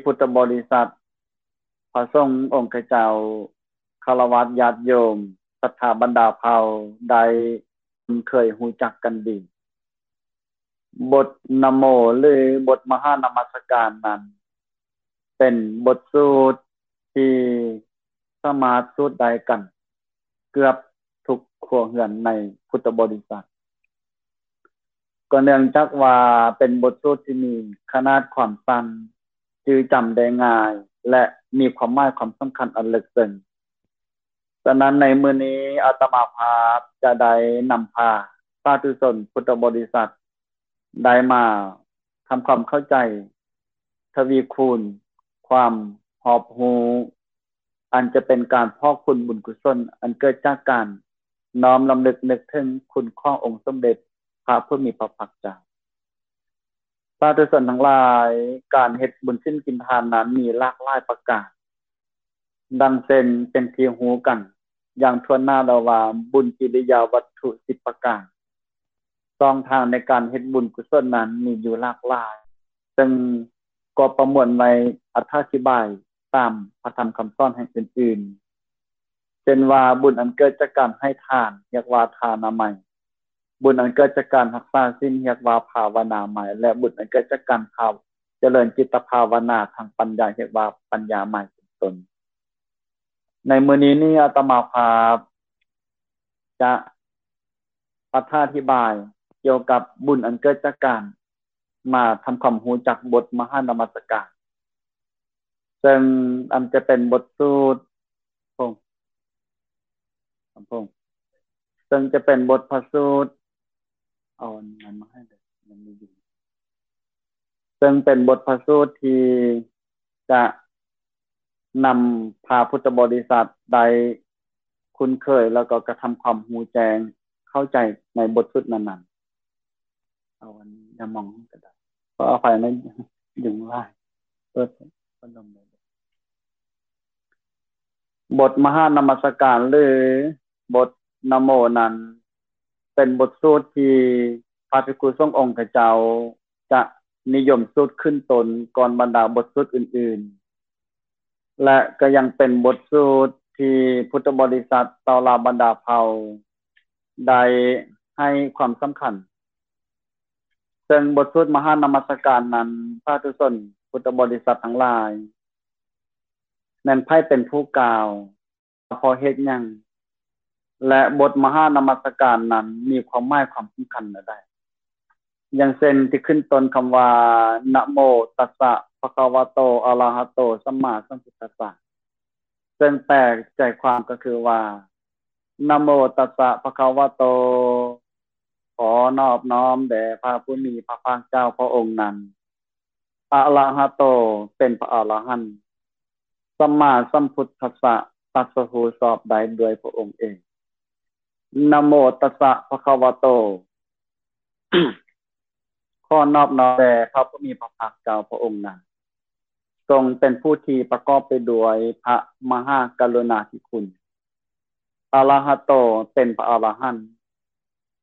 ພຸດທະບໍລິສັດ, ພະສົງອົງຄະເຈົ້າ, ຄາລະວາດຍາດໂຍມ, ສັດທາບັນດາເຜົ່າ ໄດ້ຄຸ້ນເຄີຍຮູ້ຈັກກັນດີ. ບົດນະໂມ ຫຼື ບົດມະຫານະມັດສະການນັ້ນ ເປັນບົດສູດທີ່ສາມາດສູດໄດ້ກັນເກືອບທຸກຄົວເຮືອນໃນພຸດທະບໍລິສັດ. ກໍເນື່ອງຈາກວ່າເປັນບົດສູດທີ່ມີຂະໜາດຄວາມສັ້ນ, ຈື່ຈຳໄດ້ງ່າຍ ແລະ ມີຄວາມໝາຍຄວາມສຳຄັນອັນເລິກເຊິ່ງ. ສະນັ້ນໃນມື້ນີ້ອາດຕະມາພາບຈະໄດ້ນຳພາສາທຸຊົນພຸດທະບໍລິສັດ ໄດ້ມາທຳຄວາມເຂົ້າໃຈ ທະວີຄູນຄວາມຮອບຮູ້ ອັນຈະເປັນການພອກພູນບຸນກຸສົນ ອັນເກີດຈາກການນ້ອມລຳລຶກນຶກເຖິງຄຸນຂອງອົງສົມເດັດພະຜູ້ມີພະພາກເຈົ້າ. ສາທຸຊົນທັງຫຼາຍ, ການເຮັດບຸນສິນກິນທານນັ້ນມີຫຼາກຫຼາຍປະການ. ດັ່ງເຊັ່ນເປັນທີ່ຮູ້ກັນຢ່າງທົ່ວໜ້າແລ້ວວ່າ ບຸນກິລິຍາວັດຖຸສິບປະການ. ຊ່ອງທາງໃນການເຮັດບຸນກຸສົນນັ້ນມີຢູ່ຫຼາກຫຼາຍ, ເຊິ່ງກໍປະມວນໄວ້ອະຖາທິບາຍຕາມພະທຳຄຳສອນແຫ່ງອື່ນໆ ເຊັ່ນວ່າ ບຸນອັນເກີດຈາກການໃຫ້ທານ ຮຽກວ່າທານາໄມ, ບຸນອັນເກີດຈາກການຮັກສາສິນ ຮຽກວ່າພາວະນາໄມ ແລະ ບຸນອັນເກີດຈາກການພາວ ຈະເລີນຈິດຕະພາວະນາທາງປັນຍາ ຮຽກວ່າປັນຍາໄມ ເປັນຕົ້ນ. ໃນມື້ນີ້ນີ້ອາດຕະມາພາບຈະອະຖາທິບາຍກ່ຽວກັບບຸນອັນເກີດຈາກການມາທຳຄວາມຮູ້ຈັກບົດມະຫານະມັດສະການ ເຊິ່ງອັນຈະເປັນບົດສູດ ເຊິ່ງຈະເປັນບົດພະສູດ ເອົາອັນນັ້ນມາໃຫ້ເດີ ມັນມີຢູ່ ເຊິ່ງເປັນບົດພະສູດທີ່ຈະນຳພາພຸດທະບໍລິສັດໄດ້ຄຸ້ນເຄີຍ ແລ້ວກໍກະທຳຄວາມຮູ້ແຈ້ງເຂົ້າໃຈໃນບົດສູດນັ້ນໆ. ເອົາອັນຢ່າມອງກໍໄດ້ ຂໍອະໄພນະ ຍຸງຫຼາຍ ເປີດພັດລົມໄດ້. ບົດມະຫານະມັດສະການ ຫຼື ບົດນະໂມນັ້ນ ເປັນບົດສູດທີ່ພະພິກຂຸສົງອົງຄະເຈົ້າຈະນິຍົມສູດຂຶ້ນຕົ້ນກ່ອນບັນດາບົດສູດອື່ນໆ ແລະ ກໍຍັງເປັນບົດສູດທີ່ພຸດທະບໍລິສັດເຕົ້າລາວບັນດາເຜົ່າໄດ້ໃຫ້ຄວາມສຳຄັນ. ເຊິ່ງບົດສູດມະຫານະມັດສະການນັ້ນ ສາທຸຊົນພຸດທະບໍລິສັດທັງຫຼາຍ ແມ່ນໃຜເປັນຜູ້ກ່າວ ເພາະເຫດຫຍັງ ແລະ ບົດມະຫານະມັດສະການນັ້ນມີຄວາມໝາຍຄວາມສຳຄັນແນວໃດ. ຢ່າງເຊັ່ນ ທີ່ຂຶ້ນຕົ້ນຄຳວ່າ ນະໂມຕັດສະ ພະຄະວະໂຕ ອະລະຫະໂຕ ສຳມາສຳພຸດທັດສະ ເຊິ່ງແປໃຈຄວາມກໍຄືວ່າ ນະໂມຕັດສະ ພະຄະວະໂຕ ຂໍນອບນ້ອມແດ່ພະຜູ້ມີພະພາກເຈົ້າພະອົງນັ້ນ. ອະລະຫະໂຕ ເປັນພະອະລະຫັນ, ສຳມາສຳພຸດທັດສະ ຕັດສະຮູ້ຊອບໄດ້ດ້ວຍພະອົງເອງ. ນະໂມຕັດສະ ພະຄະວະໂຕ ຂໍນອບນ້ອມແດ່ພະຜູ້ມີພະພາກເຈົ້າພະອົງນັ້ນ, ຊົງເປັນຜູ້ທີ່ປະກອບໄປດ້ວຍພະມະຫາກະລຸນາທິຄຸນ. ອະລະຫະໂຕ ເປັນພະອະລະຫັນ,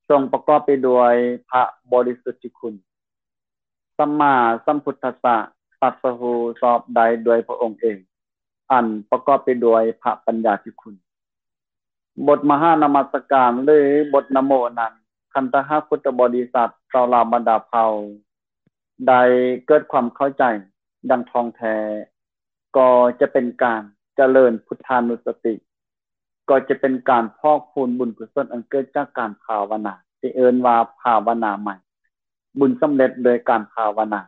ຊົງປະກອບໄປດ້ວຍພະບໍລິສຸດທິຄຸນ. ສຳມາສຳພຸດທັດສະ ຕັດສະຮູ້ຊອບໄດ້ດ້ວຍພະອົງເອງ, ອັນປະກອບໄປດ້ວຍພະປັນຍາທິຄຸນ. ບົດມະຫານະມັດສະການ ຫຼື ບົດນະໂມນັ້ນ, ຄັນຖ້າຫາກພຸດທະບໍລິສັດເຈົ້າລາວບັນດາເຜົ່າ ໄດ້ເກີດຄວາມເຂົ້າໃຈຢ່າງທ່ອງແທ້, ກໍຈະເປັນການຈະເລີນພຸດທານຸສະຕິ, ກໍຈະເປັນການພອກພູນບຸນກຸສົນອັນເກີດຈາກການພາວະນາ, ທີ່ເອີ້ນວ່າພາວະນາໃໝ່, ບຸນສຳເລັດໂດຍການພາວະນາ.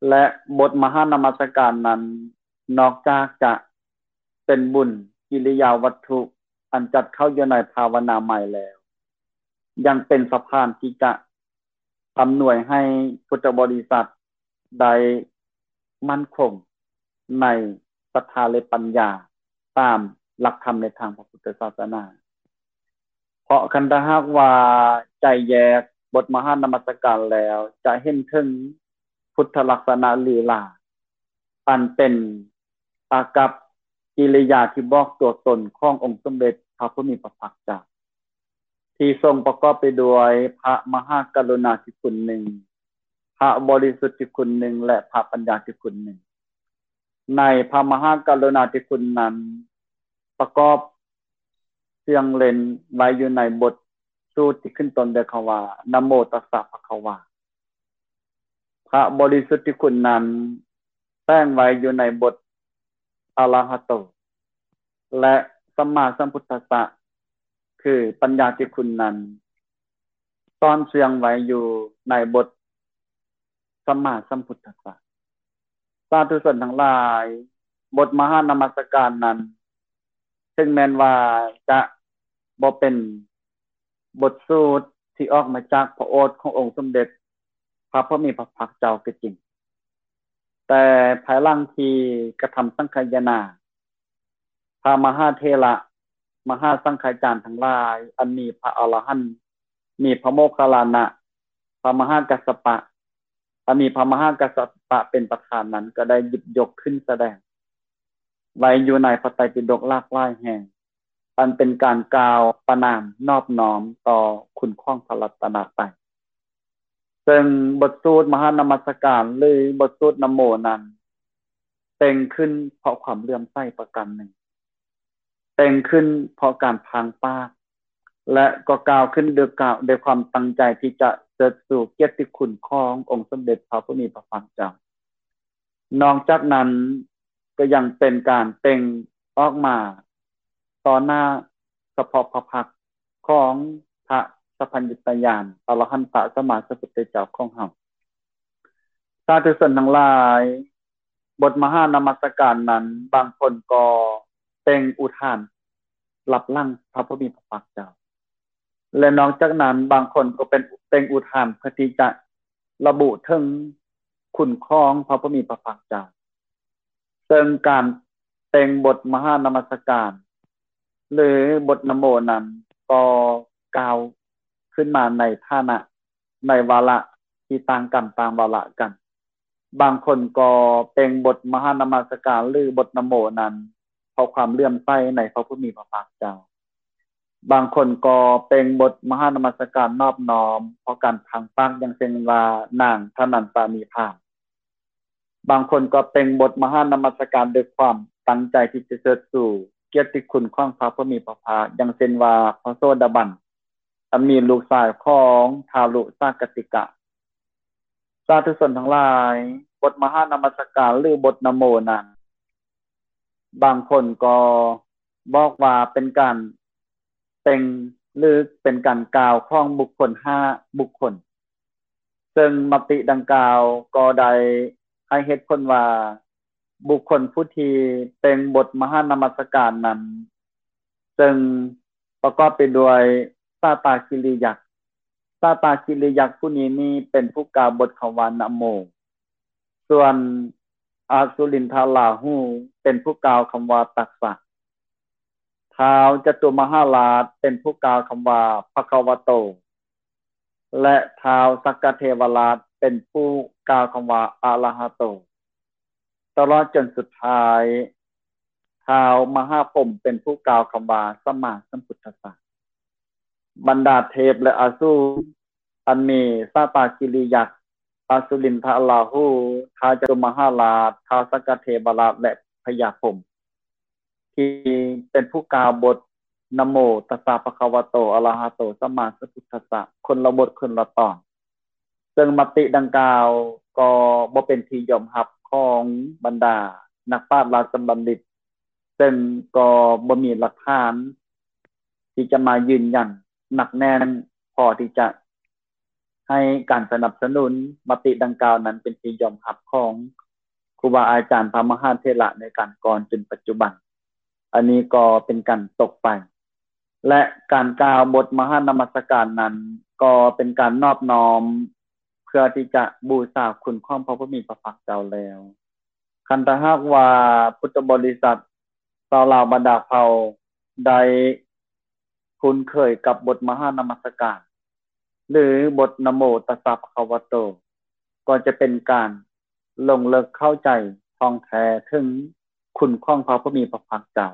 ແລະ ບົດມະຫານະມັດສະການນັ້ນ, ນອກຈາກຈະເປັນບຸນກິລິຍາວັດຖຸອັນຈັດເຂົ້າຢູ່ໃນພາວະນາໃໝ່ແລ້ວ, ຍັງເປັນສະພານທີ່ຈະອຳນວຍໃຫ້ພຸດທະບໍລິສັດໄດ້ໝັ້ນຄົງໃນສັດທາ ແລະ ປັນຍາ ຕາມຫຼັກທຳໃນທາງພະພຸດທະສາສະໜາ. ເພາະຄັນຖ້າຫາກວ່າໃຈແຍກບົດມະຫານະມັດສະການແລ້ວ ຈະເຫັນເຖິງພຸດທະລັກສະນະຫຼີຫຼາ ອັນເປັນອາກັບກິລິຍາທີ່ບອກຕົວຕົນຂອງອົງສົມເດັດພະຜູ້ມີພະພາກເຈົ້າ ທີ່ຊົງປະກອບໄປດ້ວຍພະມະຫາກະລຸນາທິຄຸນໜຶ່ງ, ພະບໍລິສຸດທິຄຸນໜຶ່ງ ແລະ ພະປັນຍາທິຄຸນໜຶ່ງ. ໃນພະມະຫາກະລຸນາທິຄຸນນັ້ນ ປະກອບສຽງເລັ່ນໄວ້ຢູ່ໃນບົດສູດທີ່ຂຶ້ນຕົ້ນດ້ວຍຄຳວ່າ ນະໂມຕັດສະພະຄະວາ. ພະບໍລິສຸດທິຄຸນນັ້ນແຝງໄວ້ຢູ່ໃນບົດອະລະຫະໂຕ ແລະ ສຳມາສຳພຸດທັດສະ ຄືປັນຍາທິຄຸນນັ້ນ ຊ້ອນເຊື່ອງໄວ້ຢູ່ໃນບົດສຳມາສຳພຸດທັດສະ. ສາທຸຊົນທັງຫຼາຍ, ບົດມະຫານະມັດສະການນັ້ນ ເຖິງແມ່ນວ່າຈະບໍ່ເປັນບົດສູດທີ່ອອກມາຈາກພະໂອດຂອງອົງສົມເດັດພະຜູ້ມີພະພາກເຈົ້າກໍຈິງ, ແຕ່ພາຍຫຼັງທີ່ກະທຳສັງຄາຍະນາ, ພະມະຫາເຖລະ ມະຫາສັງຄາຈານທັງຫຼາຍ ອັນມີພະອະລະຫັນ, ມີພະໂມກຄັນລານະ, ພະມະຫາກັດສະປະ, ອັນມີພະມະຫາກັດສະປະເປັນປະທານນັ້ນ ກໍໄດ້ຫຍິບຍົກຂຶ້ນສະແດງໄວ້ຢູ່ໃນພະໄຕປິດົກຫຼາກຫຼາຍແຫ່ງ, ອັນເປັນການກ່າວປະນາມນອບນ້ອມຕໍ່ຄຸນຂອງພະລັດຕະນະໄຕ. ເຊິ່ງບົດສູດມະຫານະມັດສະການ ຫຼື ບົດສູດນະໂມນັ້ນ ແຕ່ງຂຶ້ນເພາະຄວາມເຫຼື້ອມໃສປະການໜຶ່ງ, ແຕ່ງຂຶ້ນເພາະການພາງປາກ ແລະ ກໍກ່າວຂຶ້ນໂດຍກາ- ໂດຍຄວາມຕັ້ງໃຈທີ່ຈະເຊີດຊູກຽດຕິຄຸນຂອງອົງສົມເດັດພະຜູ້ມີພະພາກເຈົ້າ. ນອກຈາກນັ້ນກໍຍັງເປັນການເປັ່ງອອກມາຕໍ່ໜ້າສະເພາະພະພັກຂອງພະສັບພັນຍະຕະຍານອະລະຫັນຕະສຳມາສຳພຸດທະເຈົ້າຂອງເຮົາ. ສາທຸຊົນທັງຫຼາຍ, ບົດມະຫານະມັດສະການນັ້ນ ບາງຄົນກໍເປັ່ງອຸທານລັບຫຼັງພະຜູ້ມີພະພາກເຈົ້າ ແລະ ນອກຈາກນັ້ນ ບາງຄົນກໍເປັນເປັ່ງອຸທານເພື່ອທີ່ຈະລະບຸເຖິງຄຸນຂອງພະຜູ້ມີພະພາກເຈົ້າ. ເຊິ່ງການເປັ່ງບົດມະຫານະມັດສະການ ຫຼື ບົດນະໂມນັ້ນ ກໍກ່າວຂຶ້ນມາໃນຖານະ ໃນວາລະທີ່ຕ່າງກັນ, ຕ່າງວາລະກັນ. ບາງຄົນກໍເປັ່ງບົດມະຫານະມັດສະການ ຫຼື ບົດນະໂມນັ້ນ ເພາະຄວາມເຫຼື້ອມໃສໃນພະຜູ້ມີພະພາກເຈົ້າ. ບາງຄົນກໍເປັ່ງບົດມະຫານະມັດສະການນອບນ້ອມເພາະການພາງປາກ, ຢ່າງເຊັ່ນວ່າ ນາງທະນັນຕານີພາມ. ບາງຄົນກໍເປັ່ງບົດມະຫານະມັດສະການດ້ວຍຄວາມຕັ້ງໃຈທີ່ຈະເຊີດຊູກຽດຕິຄຸນຂອງພະຜູ້ມີພະພາກ, ຢ່າງເຊັ່ນວ່າ ພະໂສດາບັນ ອັນມີລູກຊາຍຂອງທາລຸສາກະຕິກະ. ສາທຸຊົນທັງຫຼາຍ, ບົດມະຫານະມັດສະການ ຫຼື ບົດນະໂມນັ້ນ ບາງຄົນກໍບອກວ່າເປັນການເປັ່ງ ຫຼື ເປັນການກ່າວຂອງບຸກຄົນຫ້າບຸກຄົນ, ເຊິ່ງມະຕິດັ່ງກ່າວກໍໄດ້ໃຫ້ເຫດຜົນວ່າ ບຸກຄົນຜູ້ທີ່ເປັ່ງບົດມະຫານະມັດສະການນັ້ນ ເຊິ່ງປະກອບໄປດ້ວຍສາຕາກິລິຍັກ. ສາຕາກິລິຍັກຜູ້ນີ້ນີ້ເປັນຜູ້ກ່າວບົດຄຳວ່ານະໂມ, ສ່ວນອະສຸລິນທະລາຫູເປັນຜູ້ກ່າວຄຳວ່າຕັດສະ, ທ້າວຈະຕຸມະຫາລາດເປັນຜູ້ກ່າວຄຳວ່າພະຄະວະໂຕ ແລະ ທ້າວສັກກະເທວະລາດເປັນຜູ້ກ່າວຄຳວ່າອະລະຫະໂຕ, ຕະຫຼອດຈົນສຸດທ້າຍ ທ້າວມະຫາພົມເປັນຜູ້ກ່າວຄຳວ່າສຳມາສຳພຸດທັດສະ. ບັນດາເທບ ແລະ ອະສູນ ອັນມີສາຕາກິລິຍັກ, ອະສຸລິນທະລາຫູ, ທ້າວຈະຕຸມະຫາລາດ, ທ້າວສັກກະເທວະລາດ ແລະ ພະຍາພົມ ທີ່ເປັນຜູ້ກ່າວບົດນະໂມຕັດສະພະຄະວະໂຕ ອະລະຫະໂຕ ສຳມາສຳພຸດທັດສະ ຄົນລະບົດຄົນລະຕອນ, ເຊິ່ງມະຕິດັ່ງກ່າວກໍບໍ່ເປັນທີ່ຍອມຮັບຂອງບັນດານັກປາດລາຊະບັນດິດ, ເຊິ່ງກໍບໍ່ມີຫຼັກຖານທີ່ຈະມາຢືນຢັນໜັກແໜ້ນພໍທີ່ຈະ ໃຫ້ການສະໜັບສະໜູນມະຕິດັ່ງກ່າວນັ້ນເປັນທີ່ຍອມຮັບຂອງຄູບາອາຈານພະມະຫາເຖລະໃນການກ່ອນຈົນປັດຈຸບັນ. ອັນນີ້ກໍເປັນການຕົກໄປ ແລະ ການກ່າວບົດມະຫານະມັດສະການນັ້ນ ກໍເປັນການນອບນ້ອມເພື່ອທີ່ຈະບູຊາຄຸນຂອງພະຜູ້ມີພະພາກເຈົ້າແລ້ວ. ຄັນຖ້າຫາກວ່າພຸດທະບໍລິສັດຊາວລາວບັນດາເຜົ່າໄດ້ຄຸ້ນເຄີຍກັບບົດມະຫານະມັດສະການ ຫຼື ບົດນະໂມຕັດສະພະຄະວະໂຕ ກໍຈະເປັນການລົງເລິກເຂົ້າໃຈທ່ອງແທ້ເຖິງຄຸນຂອງພະຜູ້ມີພະພາກເຈົ້າ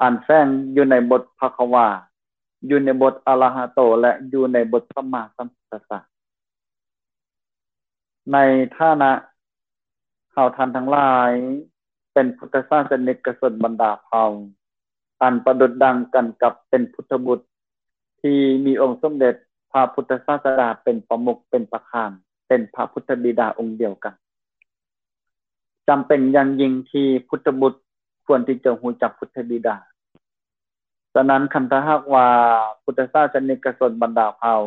ອັນແຝງຢູ່ໃນບົດພະຄະວາ, ຢູ່ໃນບົດອະລະຫະໂຕ ແລະ ຢູ່ໃນບົດສຳມາສຳພຸດທັດສະ. ໃນຖານະເຮົາທ່ານທັງຫຼາຍເປັນພຸດທະສາສະນິກກະຊົນບັນດາເຜົ່າ ອັນປະດຸດດັ່ງກັນກັບເປັນພຸດທະບຸດທີ່ມີອົງສົມເດັດພະພຸດທະສາສະດາເປັນປະມຸກ ເປັນປະທານ ເປັນພະພຸດທະບິດາອົງດຽວກັນ. ຈຳເປັນຢ່າງຍິ່ງທີ່ພຸດທະບຸດຄວນທີ່ຈະຮູ້ຈັກພຸດທະບິດາ. ສະນັ້ນ ຄັນຖ້າຫາກວ່າພຸດທະສາສະນິກກະຊົນບັນດາເຜົ່າ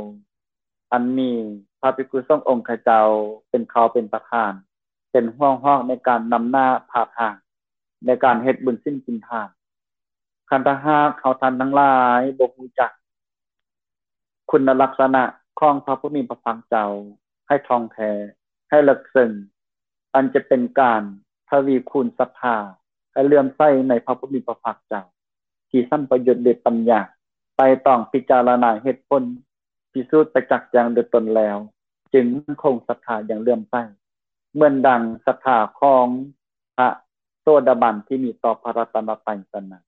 ອັນມີພະພິກຂຸສົງອົງຄະເຈົ້າເປັນເຄົ້າເປັນປະທານ ເປັນຫົວຫອກໃນການນຳໜ້າພາທາງ ໃນການເຮັດບຸນສິນກິນທານ, ຄັນຖ້າຫາກເຮົາທ່ານທັງຫຼາຍບໍ່ຮູ້ຈັກ ຄຸນນະລັກສະນະຂອງພະຜູ້ມີພະພາກເຈົ້າໃຫ້ທ່ອງແທ້, ໃຫ້ເລິກເຊິ່ງ, ອັນຈະເປັນການທະວີຄູນສັດທາໃຫ້ເຫຼື້ອມໃສໃນພະຜູ້ມີພະພາກເຈົ້າ ທີ່ສຳປະຍຸດດ້ວຍປັນຍາ, ໄຕ່ຕອງພິຈາລະນາເຫດຜົນ, ພິສູດປະຈັກແຈ້ງດ້ວຍຕົນແລ້ວ, ຈຶ່ງໝັ້ນຄົງສັດທາຢ່າງເຫຼື້ອມໃສ ເໝືອນດັ່ງສັດທາຂອງ ພະໂສດາບັນທີ່ມີຕໍ່ພະລັດຕະນະໄຕສະນັ້ນ.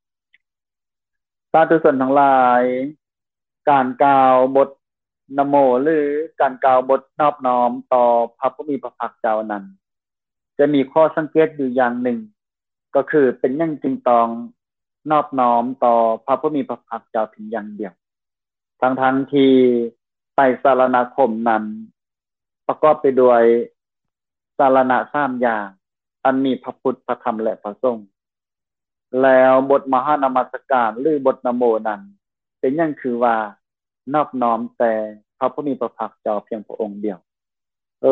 ສາທຸຊົນທັງຫຼາຍ, ການກ່າວບົດນະໂມ ຫຼື ການກ່າວບົດນອບນ້ອມຕໍ່ພະຜູ້ມີພະພາກເຈົ້ານັ້ນ ຈະມີຂໍ້ສັງເກດຢູ່ຢ່າງໜຶ່ງ, ກໍຄືເປັນຫຍັງຈຶ່ງຕ້ອງນອບນ້ອມຕໍ່ພະຜູ້ມີພະພາກເຈົ້າພຽງຢ່າງດຽວ, ທັງໆທີ່ໄຕສະລະນະຄົມນັ້ນ ປະກອບໄປດ້ວຍສາລະນະສາມຢ່າງ ອັນມີພະພຸດ, ພະທຳ ແລະ ພະສົງ. ແລ້ວບົດມະຫານະມັດສະການ ຫຼື ບົດນະໂມນັ້ນ ເປັນຫຍັງຄືວ່ານອບນ້ອມແຕ່ພະຜູ້ມີພະພາກເຈົ້າພຽງພະອົງດຽວ?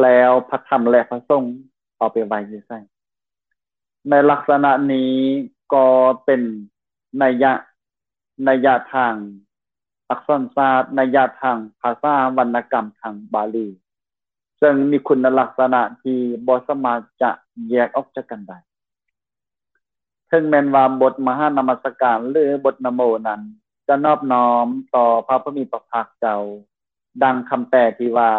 ແລ້ວພະທຳ ແລະ ພະສົງເອົາໄປໄວ້ຢູ່ໃສ? ໃນລັກສະນະນີ້ກໍເປັນໄນຍະ, ໄນຍະທາງອັກສອນສາດ, ໄນຍະທາງພາສາວັນນະກຳທາງບາລີ, ເຊິ່ງມີຄຸນນະລັກສະນະທີ່ບໍ່ສາມາດຈະແຍກອອກຈາກກັນໄດ້. ເຖິງແມ່ນວ່າບົດມະຫານະມັດສະການ ຫຼື ບົດນະໂມນັ້ນ ຈະນອບນ້ອມຕໍ່ພະຜູ້ມີພະພາກເຈົ້າ, ດັ່ງຄຳແປທີ່ວ່າ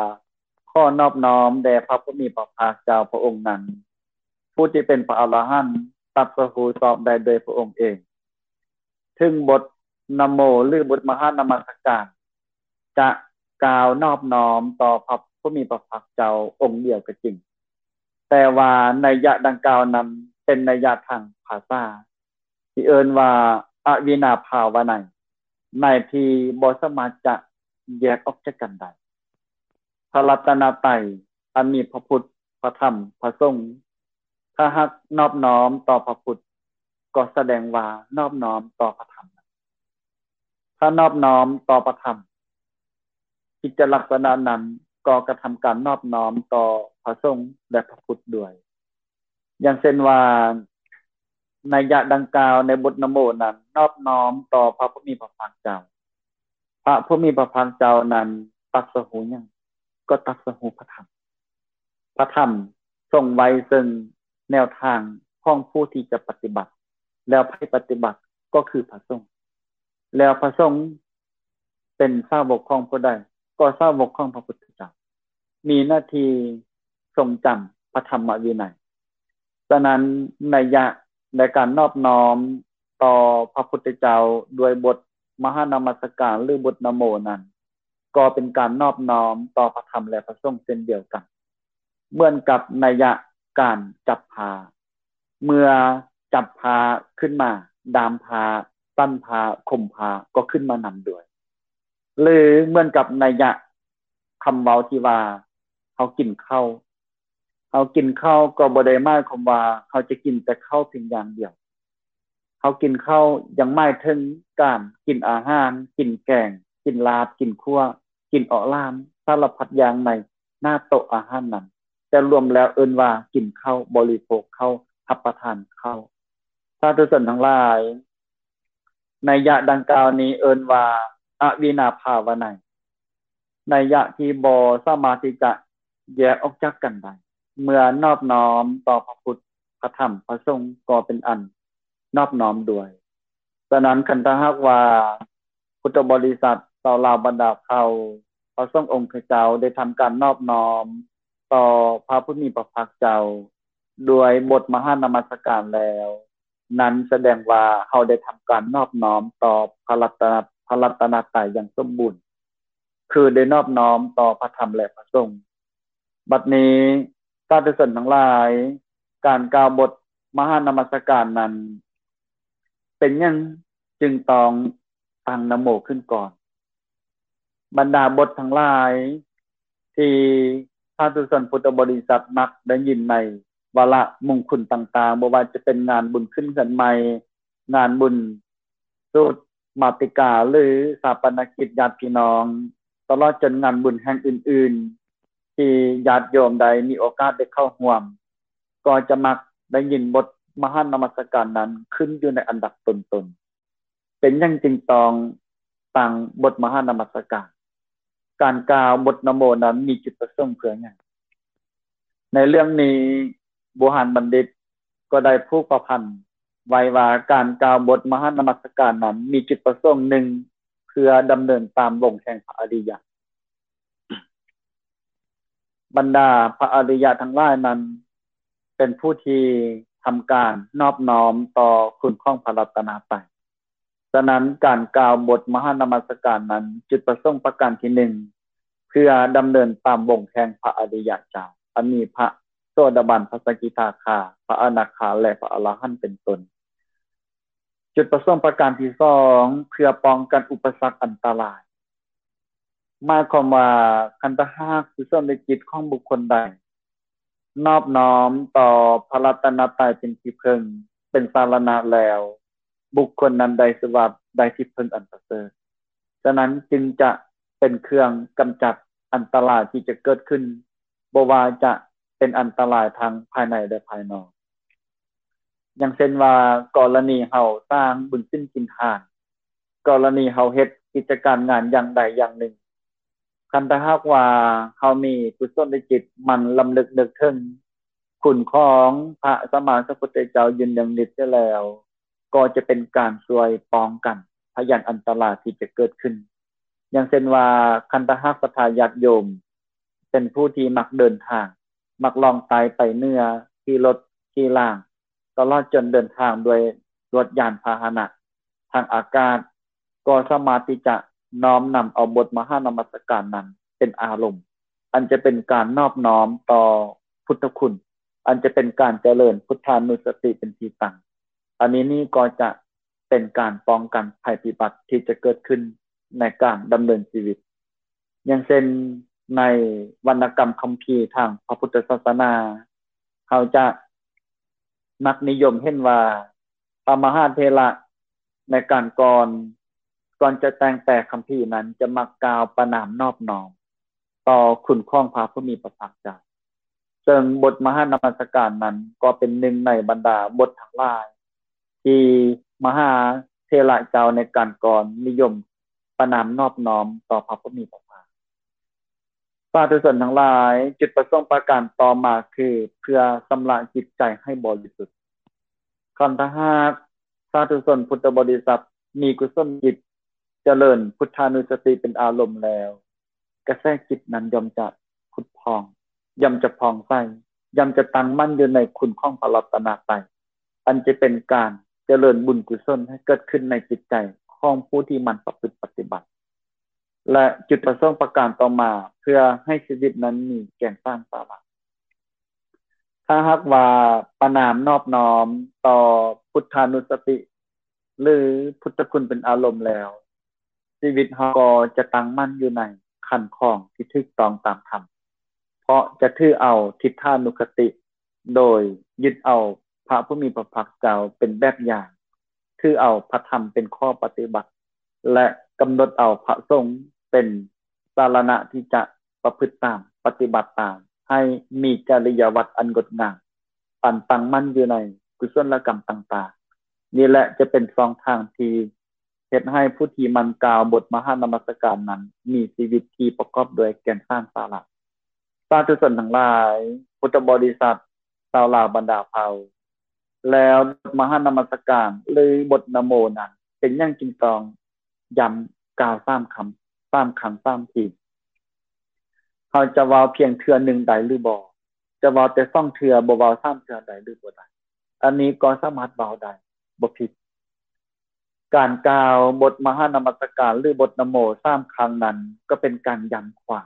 ຂໍນອບນ້ອມແດ່ພະຜູ້ມີພະພາກເຈົ້າພະອົງນັ້ນ, ຜູ້ທີ່ເປັນພະອະລະຫັນ, ຕັດສະຮູ້ຊອບໄດ້ດ້ວຍພະອົງເອງ. ເຖິງບົດນະໂມ ຫຼື ບົດມະຫານະມັດສະການ ຈະກ່າວນອບນ້ອມຕໍ່ພະຜູ້ມີພະພາກເຈົ້າອົງດຽວກໍຈິງ, ແຕ່ວ່າໄນຍະດັ່ງກ່າວນັ້ນເປັນໄນຍະທາງພາສາ ທີ່ເອີ້ນວ່າອະວິນາພາວະໄນ, ໃນທີ່ບໍ່ສາມາດຈະແຍກອອກຈາກກັນໄດ້. ພະລັດຕະນະໄຕ ອັນມີພະພຸດ, ພະທຳ, ພະສົງ, ຖ້າຫາກນອບນ້ອມຕໍ່ພະພຸດ ກໍສະແດງວ່ານອບນ້ອມຕໍ່ພະທຳ. ຖ້ານອບນ້ອມຕໍ່ພະທຳ, ກິດຈະລັກສະນະນັ້ນກໍກະທຳການນອບນ້ອມຕໍ່ພະສົງ ແລະ ພະພຸດດ້ວຍ. ຢ່າງເຊັ່ນວ່າ ໄນຍະດັ່ງກ່າວໃນບົດນະໂມນັ້ນ ນອບນ້ອມຕໍ່ພະຜູ້ມີພະພາກເຈົ້າ. ພະຜູ້ມີພະພາກເຈົ້ານັ້ນຕັດສະຮູ້ຫຍັງ? ກໍຕັດສະຮູ້ພະທຳ. ພະທຳຊົງໄວ້ເຊິ່ງແນວທາງຂອງຜູ້ທີ່ຈະປະຕິບັດ, ແລ້ວໃຜປະຕິບັດກໍຄືພະສົງ, ແລ້ວພະສົງເປັນສາວົກຂອງຜູ້ໃດ? ກໍສາວົກຂອງພະພຸດທະເຈົ້າ, ມີໜ້າທີ່ຊົງຈຳພະທຳມະວິໄນ. ສະນັ້ນ ໄນຍະໃນການນອບນ້ອມຕໍ່ພະພຸດທະເຈົ້າດ້ວຍບົດມະຫານະມັດສະການ ຫຼື ບົດນະໂມນັ້ນ ກໍເປັນການນອບນ້ອມຕໍ່ພະທຳ ແລະ ພະສົງເຊັ່ນດຽວກັນ, ເໝືອນກັບໄນຍະການຈັບຜ້າ, ເມື່ອຈັບຜ້າຂຶ້ນມາ, ດາມຜ້າ, ຕັນຜ້າ, ຄົມຜ້າ ກໍຂຶ້ນມານຳດ້ວຍ. ຫຼື ເໝືອນກັບໄນຍະຄຳເວົ້າທີ່ວ່າ ເຮົາກິນເຂົ້າ, ເຮົາກິນເຂົ້າກໍບໍ່ໄດ້ໝາຍຄວາມວ່າເຮົາຈະກິນແຕ່ເຂົ້າພຽງຢ່າງດຽວ. ເຮົາກິນເຂົ້າຍັງໝາຍເຖິງການກິນອາຫານ, ກິນແກງ, ກິນລາບ, ກິນຂົ້ວ, ກິນເອາະຫຼາມ, ສາລະພັດຢ່າງໃນໜ້າໂຕະອາຫານນັ້ນ, ແຕ່ລວມແລ້ວເອີ້ນວ່າກິນເຂົ້າ, ບໍລິໂພກເຂົ້າ, ຮັບປະທານເຂົ້າ. ສາທຸຊົນທັງຫຼາຍ, ໄນຍະດັ່ງກ່າວນີ້ເອີ້ນວ່າອະວິນາພາວະໄນ, ໄນຍະທີ່ບໍ່ສາມາດທີ່ຈະແຍກອອກຈາກກັນໄດ້. ເມື່ອນອບນ້ອມຕໍ່ພະພຸດ, ພະທຳ, ພະສົງ ກໍເປັນອັນນອບນ້ອມດ້ວຍ. ສະນັ້ນ ຄັນຖ້າຫາກວ່າ ພຸດທະບໍລິສັດ ຊາວລາວບັນດາເຜົ່າ ພະສົງອົງຄະເຈົ້າໄດ້ທຳການນອບນ້ອມຕໍ່ພະຜູ້ມີພະພາກເຈົ້າ ດ້ວຍບົດມະຫານະມັດສະການແລ້ວ, ນັ້ນສະແດງວ່າເຮົາໄດ້ທຳການນອບນ້ອມຕໍ່ພະລັດຕະນະ, ພະລັດຕະນະໄຕຢ່າງສົມບູນ, ຄືໄດ້ນອບນ້ອມຕໍ່ພະທຳ ແລະ ພະສົງ. ບັດນີ້ ສາທຸຊົນທັງຫຼາຍ, ການກ່າວບົດມະຫານະມັດສະການນັ້ນ ເປັນຫຍັງຈຶ່ງຕ້ອງຕັ້ງນະໂມຂຶ້ນກ່ອນ? ບັນດາບົດທັງຫຼາຍທີ່ສາທຸຊົນພຸດທະບໍລິສັດມັກໄດ້ຍິນໃນວາລະມົງຄຸນຕ່າງໆ, ບໍ່ວ່າຈະເປັນງານບຸນຂຶ້ນເຮືອນໃໝ່, ງານບຸນສູດມາຕິກາ ຫຼື ຊາປະນະກິດຍາດພີ່ນ້ອງ, ຕະຫຼອດຈົນງານບຸນແຫ່ງອື່ນໆ ທີ່ຍາດໂຍມໄດ້ມີໂອກາດໄດ້ເຂົ້າຮ່ວມ, ກໍຈະມັກໄດ້ຍິນບົດມະຫານະມັດສະການນັ້ນຂຶ້ນຢູ່ໃນອັນດັບຕົ້ນໆ. ເປັນຫຍັງຈຶ່ງຕ້ອງຕັ້ງບົດມະຫານະມັດສະການ? ການກ່າວບົດນະໂມນັ້ນມີຈຸດປະສົງເພື່ອຫຍັງ? ໃນເລື່ອງນີ້ ບູຮານບັນດິດກໍໄດ້ຜູກປະພັນໄວ້ວ່າ ການກ່າວບົດມະຫານະມັດສະການນັ້ນ ມີຈຸດປະສົງໜຶ່ງ ເພື່ອດຳເນີນຕາມວົງແຫ່ງພະອະລິຍະ. ບັນດາພະອະລິຍະທັງຫຼາຍນັ້ນ ເປັນຜູ້ທີ່ທຳການນອບນ້ອມຕໍ່ຄຸນຂອງພະລັດຕະນະໄຕ. ສະນັ້ນ ການກ່າວບົດມະຫານະມັດສະການນັ້ນ ຈຸດປະສົງປະການທີໜຶ່ງ ເພື່ອດຳເນີນຕາມວົງແຫ່ງພະອະລິຍະເຈົ້າ ອັນມີພະໂສດາບັນ, ພະສະກິທາຄາ, ພະອະນາຄາ ແລະ ພະອະລະຫັນເປັນຕົ້ນ. ຈຸດປະສົງປະການທີສອງ ເພື່ອປ້ອງກັນອຸປະສັກອັນຕະລາຍ. ໝາຍຄວາມວ່າ ຄັນຖ້າຫາກກຸສົນລະຈິດຂອງບຸກຄົນໃດ ນອບນ້ອມຕໍ່ພະລັດຕະນະໄຕເປັນທີ່ເພິ່ງ, ເປັນສາລະນະແລ້ວ, ບຸກຄົນນັ້ນໄດ້ຊື່ວ່າໄດ້ທີ່ເພິ່ງອັນປະເສີດ. ສະນັ້ນຈຶ່ງຈະເປັນເຄື່ອງກຳຈັດອັນຕະລາຍທີ່ຈະເກີດຂຶ້ນ, ບໍ່ວ່າຈະເປັນອັນຕະລາຍທັງພາຍໃນ ແລະ ພາຍນອກ. ຢ່າງເຊັ່ນວ່າ ກໍລະນີເຮົາສ້າງບຸນສິນກິນທານ, ກໍລະນີເຮົາເຮັດກິດຈະການງານຢ່າງໃດຢ່າງໜຶ່ງ, ຄັນຖ້າຫາກວ່າເຮົາມີກຸສົນລະຈິດໝັ່ນລຳລຶກນຶກເຖິງຄຸນຂອງພະສຳມາສຳພຸດທະເຈົ້າຢູ່ເນືອງນິດເສຍແລ້ວ, ກໍຈະເປັນການຊ່ວຍປ້ອງກັນພະຍັນອັນຕະລາຍທີ່ຈະເກີດຂຶ້ນ. ຢ່າງເຊັ່ນວ່າ ຄັນຖ້າຫາກສັດທາຍາດໂຍມເປັນຜູ້ທີ່ມັກເດີນທາງ, ມັກລ່ອງໃຕ້ໄປເໜືອ, ຂີ່ລົດ, ຂີ່ລາງ, ຕະຫຼອດຈົນເດີນທາງດ້ວຍລົດຍານພາຫະນະທາງອາກາດ, ກໍສາມາດທີ່ຈະນ້ອມນຳເອົາບົດມະຫານະມັດສະການນັ້ນເປັນອາລົມ, ອັນຈະເປັນການນອບນ້ອມຕໍ່ພຸດທະຄຸນ, ອັນຈະເປັນການຈະເລີນພຸດທານຸສະຕິເປັນທີ່ຕັ້ງ. ອັນນີ້ນີ້ກໍຈະເປັນການປ້ອງກັນໄພພິບັດທີ່ຈະເກີດຂຶ້ນໃນການດຳເນີນຊີວິດ. ຢ່າງເຊັ່ນ ໃນວັນນະກຳຄຳພີທາງພະພຸດທະສາສະໜາ, ເຮົາຈະມັກນິຍົມເຫັນວ່າ ພະມະຫາເຖລະໃນການກ່ອນ, ກ່ອນຈະແຕ່ງແປຄຳພີນັ້ນ ຈະມັກກ່າວປະນາມນອບນ້ອມຕໍ່ຄຸນຂອງພະຜູ້ມີພະພາກເຈົ້າ. ເຊິ່ງບົດມະຫານະມັດສະການນັ້ນ ກໍເປັນໜຶ່ງໃນບັນດາບົດທັງຫຼາຍ ທີ່ມະຫາເຖລະເຈົ້າໃນການກ່ອນນິຍົມປະນາມນອບນ້ອມຕໍ່ພະຜູ້ມີພະພາກ. ສາທຸຊົນທັງຫຼາຍ, ຈຸດປະສົງປະການຕໍ່ມາຄືເພື່ອຊຳລະຈິດໃຈໃຫ້ບໍລິສຸດ. ຄັນຖ້າຫາກສາທຸຊົນພຸດທະບໍລິສັດມີກຸສົນຈິດ, ຈະເລີນພຸດທານຸສະຕິເປັນອາລົມແລ້ວ, ກະແສຈິດນັ້ນຍ່ອມຈະຜຸດຜ່ອງ, ຍ່ອມຈະຜ່ອງໃສ, ຍ່ອມຈະຕັ້ງໝັ້ນຢູ່ໃນຄຸນຂອງພະລັດຕະນະໄຕ, ອັນຈະເປັນການຈະເລີນບຸນກຸສົນໃຫ້ເກີດຂຶ້ນໃນຈິດໃຈຂອງຜູ້ທີ່ໝັ່ນປະພຶດປະຕິບັດ. ແລະ ຈຸດປະສົງປະການຕໍ່ມາ ເພື່ອໃຫ້ຊີວິດນັ້ນມີແກ່ນສານສາລະ. ຖ້າຫາກວ່າປະນາມນອບນ້ອມຕໍ່ພຸດທານຸສະຕິ ຫຼື ພຸດທະຄຸນເປັນອາລົມແລ້ວ, ຊີວິດເຮົາກໍຈະຕັ້ງໝັ້ນຢູ່ໃນຄັນຄອງທີ່ຖືກຕ້ອງຕາມທຳ, ເພາະຈະຖືເອົາທິດຖານຸຄະຕິ ໂດຍຍຶດເອົາພະຜູ້ມີພະພາກເຈົ້າເປັນແບບຢ່າງ, ຖືເອົາພະທຳເປັນຂໍ້ປະຕິບັດ ແລະ ກຳນົດເອົາພະສົງເປັນສາລະນະທີ່ຈະປະພຶດຕາມ, ປະຕິບັດຕາມ, ໃຫ້ມີຈະລິຍະວັດອັນງົດງາມ, ອັນຕັ້ງໝັ້ນຢູ່ໃນກຸສົນລະກຳຕ່າງໆ. ນີ້ແຫຼະຈະເປັນຊ່ອງທາງທີ່ ເຮັດໃຫ້ຜູ້ທີ່ໝັ່ນກ່າວບົດມະຫານະມັດສະການນັ້ນ ມີຊີວິດທີ່ປະກອບດ້ວຍແກ່ນສານສາລະ. ສາທຸຊົນທັງຫຼາຍ, ພຸດທະບໍລິສັດ, ຊາວລາວບັນດາເຜົ່າ, ແລ້ວບົດມະຫານະມັດສະການ ຫຼື ບົດນະໂມນັ້ນ ເປັນຫຍັງຈຶ່ງຕ້ອງຢ້ຳກ່າວສາມຄຳ, ສາມຄັ້ງສາມທີ? ເຮົາຈະເວົ້າພຽງເທື່ອໜຶ່ງໄດ້ຫຼືບໍ່? ຈະເວົ້າແຕ່ສອງເທື່ອ, ບໍ່ເວົ້າສາມເທື່ອໄດ້ຫຼືບໍ່ໄດ້? ອັນນີ້ກໍສາມາດເວົ້າໄດ້, ບໍ່ຜິດ. ການກ່າວບົດມະຫານະມັດສະການ ຫຼື ບົດນະໂມສາມຄັ້ງນັ້ນ ກໍເປັນການຢ້ຳຂວັນ,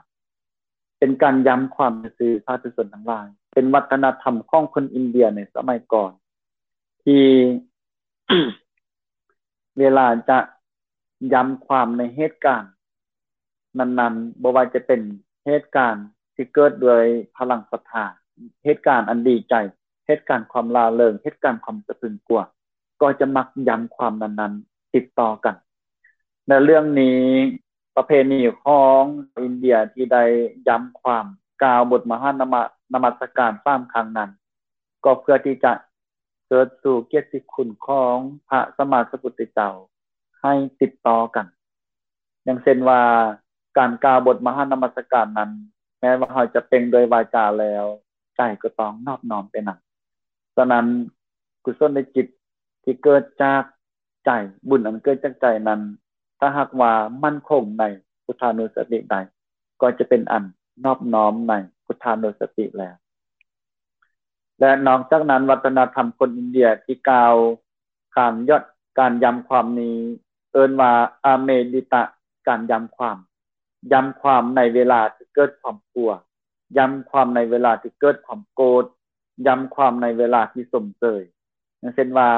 ປັນການຢ້ຳຄວາມຊື່ໆ ສາທຸຊົນທັງຫຼາຍ. ເປັນວັດທະນະທຳຂອງຄົນອິນເດຍໃນສະໄໝກ່ອນ ທີ່ ເວລາຈະຢ້ຳຄວາມໃນເຫດການນັ້ນໆ ບໍ່ວ່າຈະເປັນເຫດການທີ່ເກີດດ້ວຍພະລັງສັດທາ, ເຫດການອັນດີໃຈ, ເຫດການຄວາມລ່າເລີງ, ເຫດການຄວາມສະພຶງກົວ, ກໍຈະມັກຢ້ຳຄວາມນັ້ນໆ ຕິດຕໍ່ກັນ. ໃນເລື່ອງນີ້ ປະເພນີຂອງຊາວອິນເດຍທີ່ໄດ້ຢ້ຳຄວາມ ກ່າວບົດມະຫານະມະ ນະມັດສະການສາມຄັ້ງນັ້ນ ກໍເພື່ອທີ່ຈະເຊີດຊູກຽດຕິຄຸນຂອງພະສຳມາສຳພຸດທະເຈົ້າໃຫ້ຕິດຕໍ່ກັນ. ຢ່າງເຊັ່ນວ່າ ການກ່າວບົດມະຫານະມັດສະການນັ້ນ ແມ້ວ່າເຮົາຈະເປັ່ງດ້ວຍວາຈາແລ້ວ ໃຈກໍຕ້ອງນອບນ້ອມໄປນຳ. ສະນັ້ນ ກຸສົນນະຈິດທີ່ເກີດຈາກໃຈ, ບຸນອັນເກີດຈາກໃຈນັ້ນ ຖ້າຫາກວ່າໝັ້ນຄົງໃນພຸດທານຸສະຕິໄດ້ ກໍຈະເປັນອັນນອບນ້ອມໃນພຸດທານຸສະຕິແລ້ວ. ແລະ ນອກຈາກນັ້ນ ວັດທະນະທຳຄົນອິນເດຍທີ່ກ່າວ ການຢອດ ການຢ້ຳຄວາມນີ້ເອີ້ນວ່າ ອາເມລິຕະ ການຢ້ຳຄວາມ, ຢ້ຳຄວາມໃນເວລາທີ່ເກີດຄວາມກົວ, ຢ້ຳຄວາມໃນເວລາທີ່ເກີດຄວາມໂກດ, ຢ້ຳຄວາມໃນເວລາທີ່ຊົມເຊີຍ. ຢ່າງເຊັ່ນວ່າ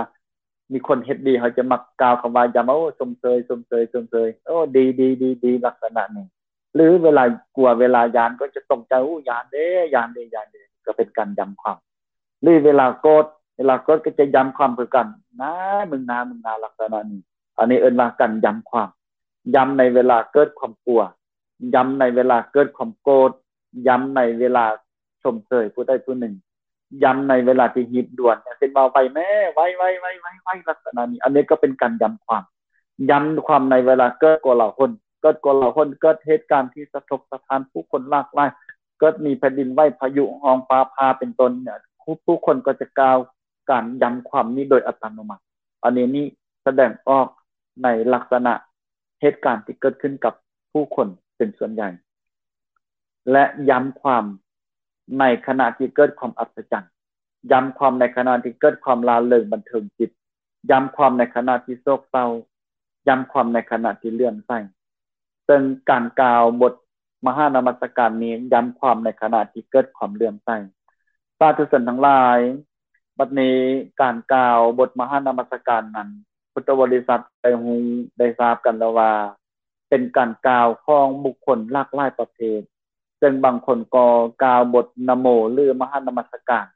ມີຄົນເຮັດດີ ເຮົາຈະມັກກ່າວຄຳວ່າຢ້ຳ ໂອ້ ຊົມເຊີຍ, ຊົມເຊີຍ, ຊົມເຊີຍ, ໂອ້ ດີ, ດີ, ດີ, ດີ, ລັກສະນະນີ້. ຫຼືເວລາກົວ ເວລາຢ້ານກໍຈະຕົກໃຈ ໂອ້ ຢ້ານເດ້ ຢ້ານເດ້ ຢ້ານເດ້ ກໍເປັນການຢ້ຳຄວາມ. ຫຼືເວລາໂກດ ເວລາໂກດກໍຈະຢ້ຳຄວາມຄືກັນ ນາ ມຶງນາ ມຶງນາ ລັກສະນະນີ້. ອັນນີ້ເອີ້ນວ່າການຢ້ຳຄວາມ, ຢ້ຳໃນເວລາເກີດຄວາມກົວ, ຢ້ຳໃນເວລາເກີດຄວາມໂກດ, ຢ້ຳໃນເວລາຊົມເຊີຍຜູ້ໃດຜູ້ໜຶ່ງ, ຢ້ຳໃນເວລາທີ່ຮີບດ່ວນ ຢ່າງເຊັ່ນວ່າ ໄວແມ້ ໄວ ໄວ ໄວ ໄວ ໄວ ລັກສະນະນີ້. ອັນນີ້ກໍເປັນການຢ້ຳຄວາມ, ຢ້ຳຄວາມໃນເວລາເກີດໂກລາຫົນ, ເກີດໂກລາຫົນ, ເກີດເຫດການທີ່ສະທົກສະທ້ານ ຜູ້ຄົນຫຼາກຫຼາຍ, ເກີດມີແຜ່ນດິນໄຫວ, ພາຍຸຮ້ອງ, ຟ້າຜ່າ ເປັນຕົ້ນເນຍ, ຜູ້ ຜູ້ຄົນກໍຈະກ່າວການຢ້ຳຄວາມນີ້ໂດຍອັດຕະໂນມັດ. ອັນນີ້ນີ້ສະແດງອອກໃນລັກສະນະເຫດການທີ່ເກີດຂຶ້ນກັບຜູ້ຄົນເປັນສ່ວນໃຫຍ່ ແລະ ຢ້ຳຄວາມໃນຂະນະທີ່ເກີດຄວາມອັດສະຈັນ, ຢ້ຳຄວາມໃນຂະນະທີ່ເກີດຄວາມລ່າເລີງບັນເທີງຈິດ, ຢ້ຳຄວາມໃນຂະນະທີ່ໂສກເສົ້າ, ຢ້ຳຄວາມໃນຂະນະທີ່ເຫຼື້ອມໃສ. ເຊິ່ງການກ່າວບົດມະຫານະມັດສະການນີ້ ຢ້ຳຄວາມໃນຂະນະທີ່ເກີດຄວາມເຫຼື້ອມໃສ. ສາທຸຊົນທັງຫຼາຍ, ບັດນີ້ການກ່າວບົດມະຫານະມັດສະການນັ້ນ ພຸດທະບໍລິສັດໄດ້ຮູ້ໄດ້ຊາບກັນແລ້ວວ່າ ເປັນການກ່າວຂອງບຸກຄົນຫຼາກຫຼາຍປະເພດ, ເຊິ່ງບາງຄົນກໍກ່າວບົດນະໂມ ຫຼື ມະຫານະມັດສະການ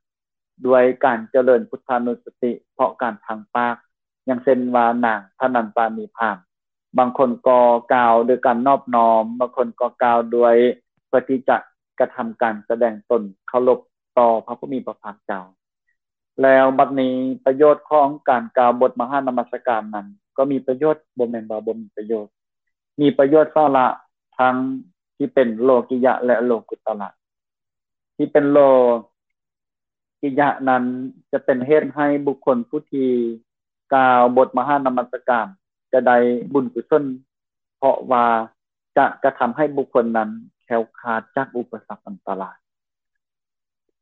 ດ້ວຍການຈະເລີນພຸດທານຸສະຕິເພາະການທາງປາກ, ຢ່າງເຊັ່ນວ່ານາງທະນັນຕານີພາມ. ບາງຄົນກໍກ່າວໂດຍການນອບນ້ອມ, ບາງຄົນກໍກ່າວດ້ວຍເພື່ອທີ່ຈະກະທຳການສະແດງຕົນເຄົາລົບຕໍ່ພະຜູ້ມີພະພາກເຈົ້າ. ແລ້ວບັດນີ້ປະໂຫຍດຂອງການກ່າວບົດມະຫານະມັດສະການນັ້ນ ກໍມີປະໂຫຍດ, ບໍ່ແມ່ນວ່າບໍ່ມີປະໂຫຍດ, ມີປະໂຫຍດສາລະທັງທີ່ເປັນໂລກິຍະ ແລະ ໂລກຸດຕະລະ. ທີ່ເປັນໂລກິຍະນັ້ນ ຈະເປັນເຫດໃຫ້ບຸກຄົນຜູ້ທີ່ກ່າວບົດມະຫານະມັດສະການ ຈະໄດ້ບຸນກຸສົນ, ເພາະວ່າຈະກະທຳໃຫ້ບຸກຄົນນັ້ນແຄ້ວຄາດຈາກອຸປະສັກອັນຕະລາຍ.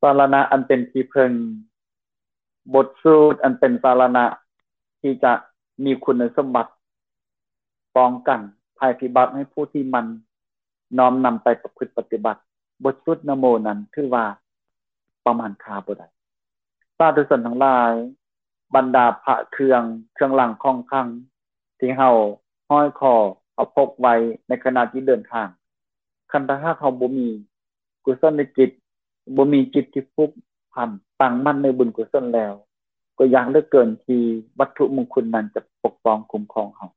ສາລະນະອັນເປັນທີ່ເພິ່ງ, ບົດສູດອັນເປັນສາລະນະທີ່ຈະມີຄຸນສົມບັດປ້ອງກັນໄພພິບັດໃຫ້ຜູ້ທີ່ໝັ່ນນ້ອມນຳໄປປະພຶດປະຕິບັດ. ບົດສູດນະໂມນັ້ນຖືວ່າປະມານຄ່າບໍ່ໄດ້. ສາທຸຊົນທັງຫຼາຍ, ບັນດາພະເຄື່ອງ, ເຄື່ອງລາງຂອງຂລັງທີ່ເຮົາຫ້ອຍຄໍເຮົາພົກໄວ້ໃນຂະນະທີ່ເດີນທາງ, ຄັນຖ້າຫາກເຮົາບໍ່ມີ ກຸສລະຈິດ, ບໍ່ມີຈິດທີ່ຜູກພັນຕັ້ງໝັ້ນໃນບຸນກຸສົນແລ້ວ, ກໍຍາກເຫຼືອເກີນທີ່ວັດຖຸມຸງຄຸນນັ້ນຈະປົກປ້ອງຄຸ້ມຄອງເຮົາ.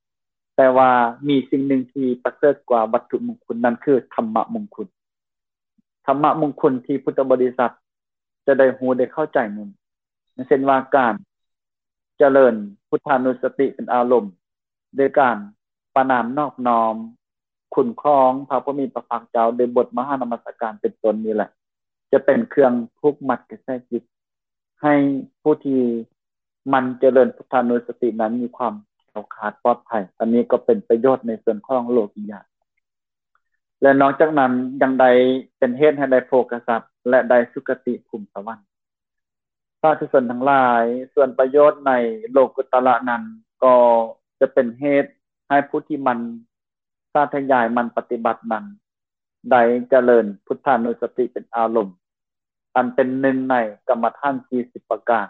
ແຕ່ວ່າມີສິ່ງໜຶ່ງທີ່ປະເສີດກວ່າວັດຖຸມຸງຄຸນ, ນັ້ນຄືທຳມະມຸງຄຸນ. ທຳມະມຸງຄຸນທີ່ພຸດທະບໍລິສັດຈະໄດ້ຮູ້ໄດ້ເຂົ້າໃຈນັ້ນ, ເຊັ່ນວ່າການຈະເລີນພຸດທານຸສະຕິເປັນອາລົມ, ໂດຍການປະນາມນອບນ້ອມຄຸນຂອງພະຜູ້ມີພະພາກເຈົ້າ ໂດຍບົດມະຫານະມັດສະການເປັນຕົ້ນນີ້ແຫຼະ ຈະເປັນເຄື່ອງຜູກມັດກະແສຈິດ ໃຫ້ຜູ້ທີ່ໝັ່ນຈະເລີນພຸດທານຸສະຕິນັ້ນມີຄວາມແຄ້ວຄາດປອດໄພ. ອັນນີ້ກໍເປັນປະໂຫຍດໃນສ່ວນຂອງໂລກິຍະ ແລະ ນອກຈາກນັ້ນຍັງໄດ້ເປັນເຫດໃຫ້ໄດ້ໂພຄະສັດ ແລະ ໄດ້ສຸຄະຕິພູມສະຫວັນ. ສາທຸຊົນທັງຫຼາຍ, ສ່ວນປະໂຫຍດໃນໂລກຸດຕະລະນັ້ນ ກໍຈະເປັນເຫດໃຫ້ຜູ້ທີ່ໝັ່ນສາທະຍາຍ ໝັ່ນປະຕິບັດນັ້ນ ໄດ້ຈະເລີນພຸດທານຸສະຕິເປັນອາລົມ ອັນເປັນໜຶ່ງໃນກຳມະຖານສີ່ສິບປະການ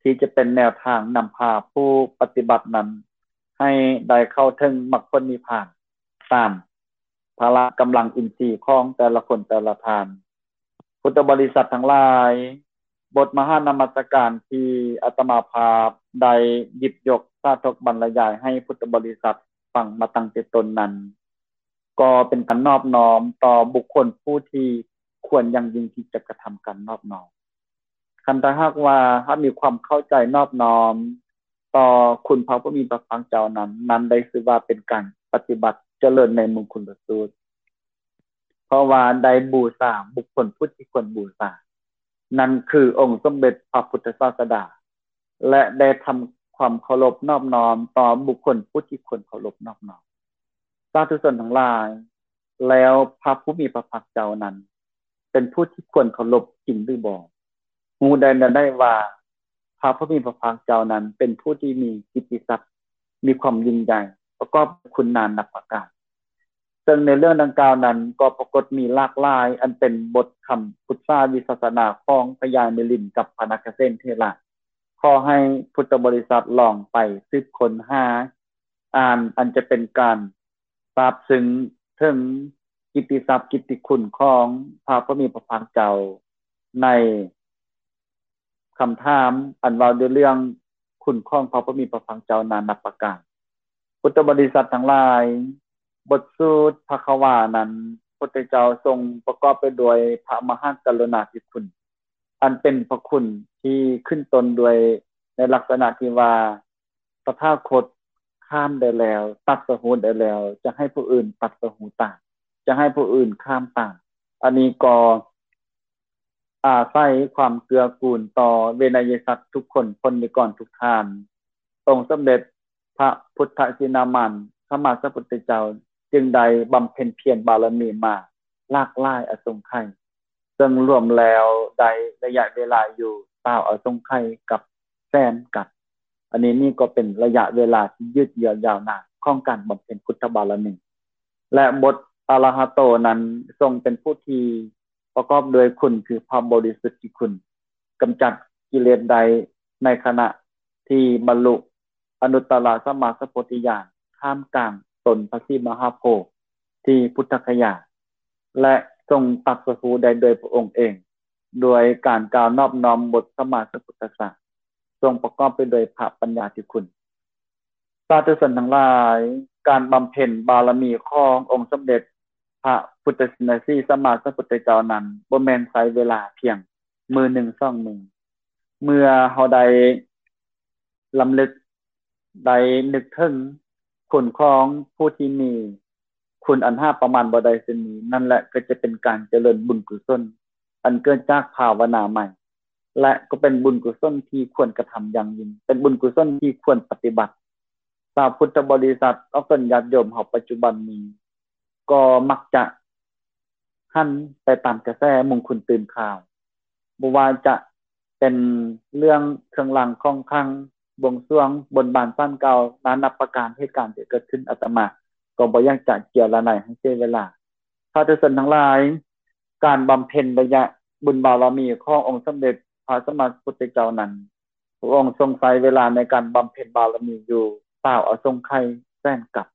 ທີ່ຈະເປັນແນວທາງນຳພາຜູ້ປະຕິບັດນັ້ນ ໃຫ້ໄດ້ເຂົ້າເຖິງມັກຜົນນິບພານ ຕາມພະລະກຳລັງອິນຊີຂອງແຕ່ລະຄົນແຕ່ລະທ່ານ. ພຸດທະບໍລິສັດທັງຫຼາຍ, ບົດມະຫານະມັດສະການທີ່ອາດຕະມາພາບໄດ້ຫຍິບຍົກສາທົກບັນລະຍາຍໃຫ້ພຸດທະບໍລິສັດຟັງມາຕັ້ງແຕ່ຕົ້ນນັ້ນ ກໍເປັນການນອບນ້ອມຕໍ່ບຸກຄົນຜູ້ທີ່ຄວນຢ່າງຍິ່ງທີ່ຈະກະທຳການນອບນ້ອມ. ຄັນຖ້າຫາກວ່າເຮົາມີຄວາມເຂົ້າໃຈນອບນ້ອມຕໍ່ຄຸນພະຜູ້ມີພະພາກເຈົ້ານັ້ນ, ນັ້ນໄດ້ຊື່ວ່າເປັນການປະຕິບັດຈະເລີນໃນມຸງຄຸນລະສູດ, ເພາະວ່າໄດ້ບູຊາບຸກຄົນຜູ້ທີ່ຄວນບູຊາ, ນັ້ນຄືອົງສົມເດັດພະພຸດທະສາສະດາ ແລະ ໄດ້ທຳຄວາມເຄົາລົບນອບນ້ອມຕໍ່ບຸກຄົນຜູ້ທີ່ຄວນເຄົາລົບນອບນ້ອມ. ສາທຸຊົນທັງຫຼາຍ, ແລ້ວພະຜູ້ມີພະພາກເຈົ້ານັ້ນ ເປັນຜູ້ທີ່ຄວນເຄົາລົບຈິງຫຼືບໍ່? ຮູ້ໄດ້ແນວໃດວ່າ ພະຜູ້ມີພະພາກເຈົ້ານັ້ນເປັນຜູ້ທີ່ມີກິດຕິສັກ ມີຄວາມຍິ່ງໃຫຍ່ ປະກອບຄຸນນານັບປະການ. ເຊິ່ງໃນເລື່ອງດັ່ງກ່າວນັ້ນກໍປາກົດມີຫຼາກຫຼາຍ ອັນເປັນບົດຄຳປຶກສາວິປັດສະນາຂອງພະຍາມິລິນກັບພະນາຄະເສນເຖລະ. ຂໍໃຫ້ພຸດທະບໍລິສັດລອງໄປສືບຄົ້ນຫາອ່ານ ອັນຈະເປັນການຊາບຊຶ້ງເຖິງກິດຕິສັກກິດຕິຄຸນຂອງພະຜູ້ມີພະພາກເຈົ້າ ໃນຄຳຖາມອັນເວົ້າດ້ວຍເລື່ອງຄຸນຂອງພະຜູ້ມີພະພາກເຈົ້ານານັບປະການ. ພຸດທະບໍລິສັດທັງຫຼາຍ, ບົດສູດພະຄະວານັ້ນ ພຸດທະເຈົ້າຊົງປະກອບໄປດ້ວຍພະມະຫາກະລຸນາທິຄຸນ ອັນເປັນພະຄຸນທີ່ຂຶ້ນຕົ້ນດ້ວຍໃນລັກສະນະທີ່ວ່າ ຕະຖາຄົດຂ້າມໄດ້ແລ້ວ, ຕັດສະຮູ້ໄດ້ແລ້ວ, ຈະໃຫ້ຜູ້ອື່ນຕັດສະຮູ້ຕາມ, ຈະໃຫ້ຜູ້ອື່ນຂ້າມຕາມ. ອັນນີ້ກໍອາໄສຄວາມເກື້ອກູນຕໍ່ເວໄນຍະສັດທຸກຄົນ, ພົນນິກອນທຸກທ່ານ. ອົງສົມເດັດພະພຸດທະຊິນນາມານ ສຳມາສຳພຸດທະເຈົ້າ ຈຶ່ງໄດ້ບຳເພັນພຽນບາລະມີມາຫຼາກຫຼາຍອະສົງໄຂ, ເຊິ່ງລວມແລ້ວໄດ້ໄລຍະເວລາຢູ່ຊາວອະສົງໄຂກັບແສນກັບ. ອັນນີ້ນີ້ກໍເປັນໄລຍະເວລາທີ່ຍືດເຢື້ອຍາວນານຂອງການບຳເພັນພຸດທະບາລະມີ ແລະ ບົດອະລະຫະໂຕນັ້ນຊົງເປັນຜູ້ທີ່ປະກອບດ້ວຍຄຸນ ຄືພະບໍລິສຸດທິຄຸນ, ກຳຈັດກິເລດໄດ້ໃນຂະນະທີ່ບັນລຸ ອະນຸດຕະລະສຳມາສຳໂພທິຍານ ທ່າມກາງຕົ້ນພະສີມະຫາໂພທິພຸດທະຄະຍາ ແລະ ຊົງຕັດສະຮູ້ໄດ້ດ້ວຍພະອົງເອງ ດ້ວຍການກ່າວນອບນ້ອມບົດສຳມາສຳພຸດທະສະ ຊົງປະກອບໄປດ້ວຍພະປັນຍາທິຄຸນ. ສາທຸຊົນທັງຫຼາຍ, ການບຳເພັນບາລະມີຂອງອົງສົມເດັດພະພຸດທະຊິນນະສີສຳມາສຳພຸດທະເຈົ້ານັ້ນ ບໍ່ແມ່ນໃຊ້ເວລາພຽງມື້ໜຶ່ງສອງມື້. ເມື່ອເຮົາໄດ້ ລຳລຶກໄດ້ນຶກເຖິງຄຸນຂອງຜູ້ທີ່ມີຄຸນອັນຫາປະມານບໍ່ໄດ້ເຊັ່ນນີ້, ນັ້ນແຫຼະກໍຈະເປັນການຈະເລີນບຸນກຸສົນ ອັນເກີດຈາກພາວະນາໃໝ່ ແລະ ກໍເປັນບຸນກຸສົນທີ່ຄວນກະທຳຢ່າງຍິ່ງ, ເປັນບຸນກຸສົນທີ່ຄວນປະຕິບັດ. ຊາວພຸດທະບໍລິສັດ ອອກຕົນຍາດໂຍມເຮົາປັດຈຸບັນນີ້ ກໍມັກຈະຫັນໄປຕາມກະແສມຸງຄຸນຕື່ມຂ່າວ, ບໍ່ວ່າຈະເປັນເລື່ອງເຄື່ອງລາງຂອງຂັງ, ບວງສວງ, ບົນບານສານກ່າວ ນານັບປະການເຫດການທີ່ເກີດຂຶ້ນ, ອາດຕະມາກໍບໍ່ຢາກຈະເຈຍລະໄນໃຫ້ເສຍເວລາ. ສາທຸຊົນທັງຫຼາຍ, ການບຳເພັນໄລຍະບຸນບາລະມີຂອງອົງສົມເດັດພະສຳມາສຳພຸດທະເຈົ້ານັ້ນ, ພະອົງຊົງໃຊ້ເວລາໃນການບຳເພັນບາລະມີຢູ່ຊາວອະສົງໄຂແສນກັບ.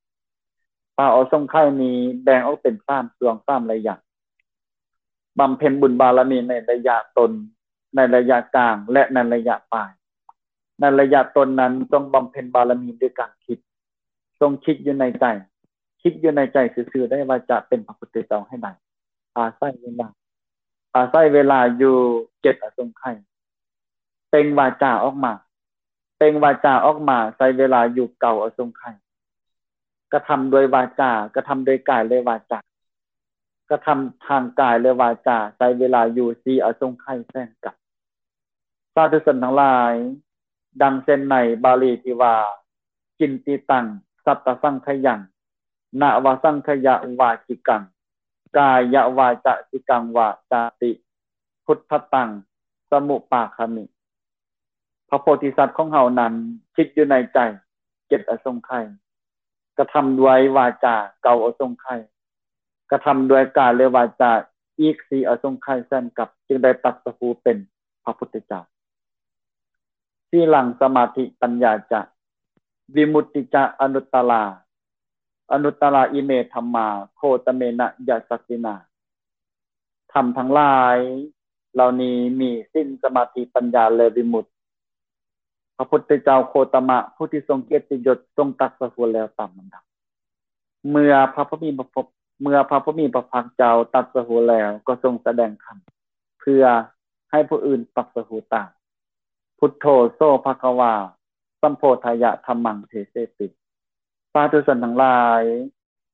ຊາວອະສົງໄຂນີ້ແບ່ງອອກເປັນສາມຊ່ວງສາມໄລຍະ, ບຳເພັນບຸນບາລະມີໃນໄລຍະຕົ້ນ, ໃນໄລຍະກາງ ແລະ ໃນໄລຍະປາຍ. ໃນໄລຍະຕົ້ນນັ້ນ ຈົ່ງບຳເພັນບາລະມີດ້ວຍການຄິດ, ຈົ່ງຄິດຢູ່ໃນໃຈ, ຄິດຢູ່ໃນໃຈຊື່ໆ ໄດ້ວ່າຈະເປັນພະພຸດທະເຈົ້າໃຫ້ໄດ້. ອາໄສເວລາ, ອາໄສເວລາຢູ່ເຈັດອະສົງໄຂ. ເປັ່ງວາຈາອອກມາ, ເປັ່ງວາຈາອອກມາ ໃຊ້ເວລາຢູ່ເກົ້າອະສົງໄຂ. ກະທຳດ້ວຍວາຈາ, ກະທຳດ້ວຍກາຍ ແລະ ວາຈາ, ກະທຳທາງກາຍ ແລະ ວາຈາ ໃຊ້ເວລາຢູ່ສີ່ອະສົງໄຂແສນກັບ. ສາທຸຊົນທັງຫຼາຍ, ດັ່ງເຊັ່ນໃນບາລີທີ່ວ່າ ກິນຕິຕັງ ສັດຕະສັງຂະຍັງ ນະວະສັງຂະຍະວາຈິກັງ ກາຍະວາຈະສິກັງວາຈາຕິ ພຸດທະຕັງ ສະມຸປາຄາມິ. ພະໂພທິສັດຂອງເຮົານັ້ນ ຄິດຢູ່ໃນໃຈເຈັດອະສົງໄຂ, ກະທຳດ້ວຍວາຈາເກົ້າອະສົງໄຂ, ກ ກະທຳດ້ວຍກາຍ ແລະ ວາຈາ ອີກສີ່ອະສົງໄຂແສນກັບ ຈຶ່ງໄດ້ຕັດສະຮູ້ເປັນພະພຸດທະເຈົ້າ. ສີລັງສະມາທິປັນຍາຈະ ວິມຸດຕິຈະອະນຸດຕະລາ ອະນຸດຕະລາອິເມທຳມາ ໂຄຕະເມນະຍະສັດຕິນາ. ທຳທັງຫຼາຍເຫຼົ່ານີ້ມີສິນ ສະມາທິ ປັນຍາ ແລະ ວິມຸດ. ພະພຸດທະເຈົ້າໂຄຕະມະ ຜູ້ທີ່ຊົງກຽດຕິຍົດ ຊົງຕັດສະຮູ້ແລ້ວຕາມລຳດັບ. ເມື່ອພະຜູ້ມີພະພ- ເມື່ອພະຜູ້ມີພະພາກເຈົ້າຕັດສະຮູ້ແລ້ວ ກໍຊົງສະແດງທຳ ເພື່ອໃຫ້ຜູ້ອື່ນຕັດສະຮູ້ຕາມ. ພຸດໂທ ໂສ ພະຄະວາ ສຳໂພທາຍະ ທຳມັງ ເທເສຕິ. ສາທຸຊົນທັງຫຼາຍ,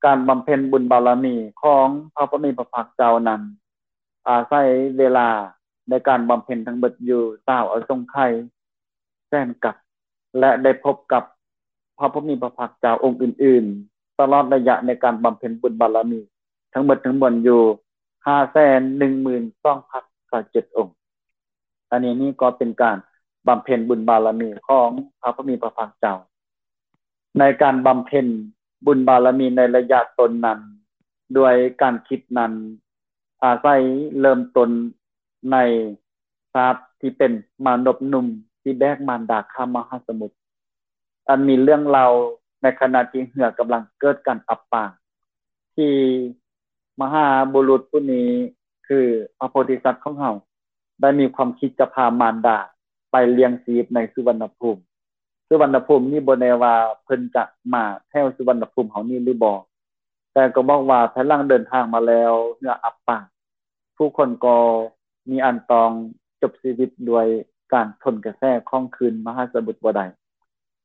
ການບຳເພັນບຸນບາລະມີຂອງພະຜູ້ມີພະພາກເຈົ້ານັ້ນ ອາໄສເວລາໃນການບຳເພັນທັງເບິດຢູ່ຊາວອະສົງໄຂແສນກັບ ແລະ ໄດ້ພົບກັບພະຜູ້ມີພະພາກເຈົ້າອົງອື່ນໆ ຕະຫຼອດໄລຍະໃນການບຳເພັນບຸນບາລະມີທັງເບິດທັງມວນຢູ່ ຫ້າແສນໜຶ່ງໝື່ນສອງພັນຊາວເຈັດອົງ. ອັນນີ້ນີ້ກໍເປັນການບຳເພັນບຸນບາລະມີຂອງພະຜູ້ມີພະພາກເຈົ້າ. ໃນການບຳເພັນບຸນບາລະມີໃນໄລຍະຕົ້ນນັ້ນ ດ້ວຍການຄິດນັ້ນ ອາໄສເລີ່ມຕົ້ນໃນຊາດທີ່ເປັນມານົບໜຸ່ມທີ່ແບກມານດາຂ້າມມະຫາສະໝຸດ, ອັນມີເລື່ອງເລົ່າໃນຂະນະທີ່ເຮືອກຳລັງເກີດການອັບປາງ ທີ່ມະຫາບຸລຸດຜູ້ນີ້ ຄືພະໂພທິສັດຂອງເຮົາ ໄດ້ມີຄວາມຄິດຈະພາມານດາໄປລ້ຽງຊີບໃນສຸວັນນະພູມ. ສຸວັນນະພູມນີ້ບໍ່ແນ່ວ່າເພິ່ນຈະມາແຖວສຸວັນນະພູມເຮົານີ້ຫຼືບໍ່, ແຕ່ກໍບອກວ່າພາຍຫຼັງເດີນທາງມາແລ້ວ ເຮືອອັບປາງ, ຜູ້ຄົນກໍມີອັນຕ້ອງຈົບຊີວິດດ້ວຍການທົນກະແສຂອງຄື້ນມະຫາສະໝຸດບໍ່ໄດ້.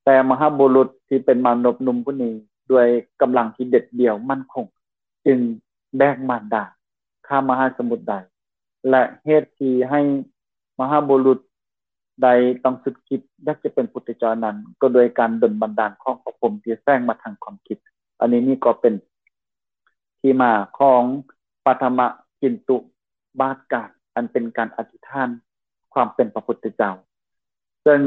ແຕ່ມະຫາບຸລຸດທີ່ເປັນມານົບໜຸ່ມຜູ້ນີ້ ດ້ວຍກຳລັງທີ່ເດັດດ່ຽວໝັ້ນຄົງ ຈຶ່ງແບກມານດາຂ້າມມະຫາສະໝຸດໄດ້ ແລະ ເຫດທີ່ໃຫ້ມະຫາບຸລຸດໃດຕ້ອງສຸດຄິດຢາກຈະເປັນພຸດທະເຈົ້ານັ້ນ ກໍດ້ວຍການດົນບັນດານຂອງພະພົມທີ່ແຝງມາທາງຄວາມຄິດ. ອັນນີ້ນີ້ກໍເປັນທີ່ມາຂອງປະຖະມະຈິນຕຸບາດການ ອັນເປັນການອະທິຖານຄວາມເປັນພະພຸດທະເຈົ້າ, ເຊິ່ງ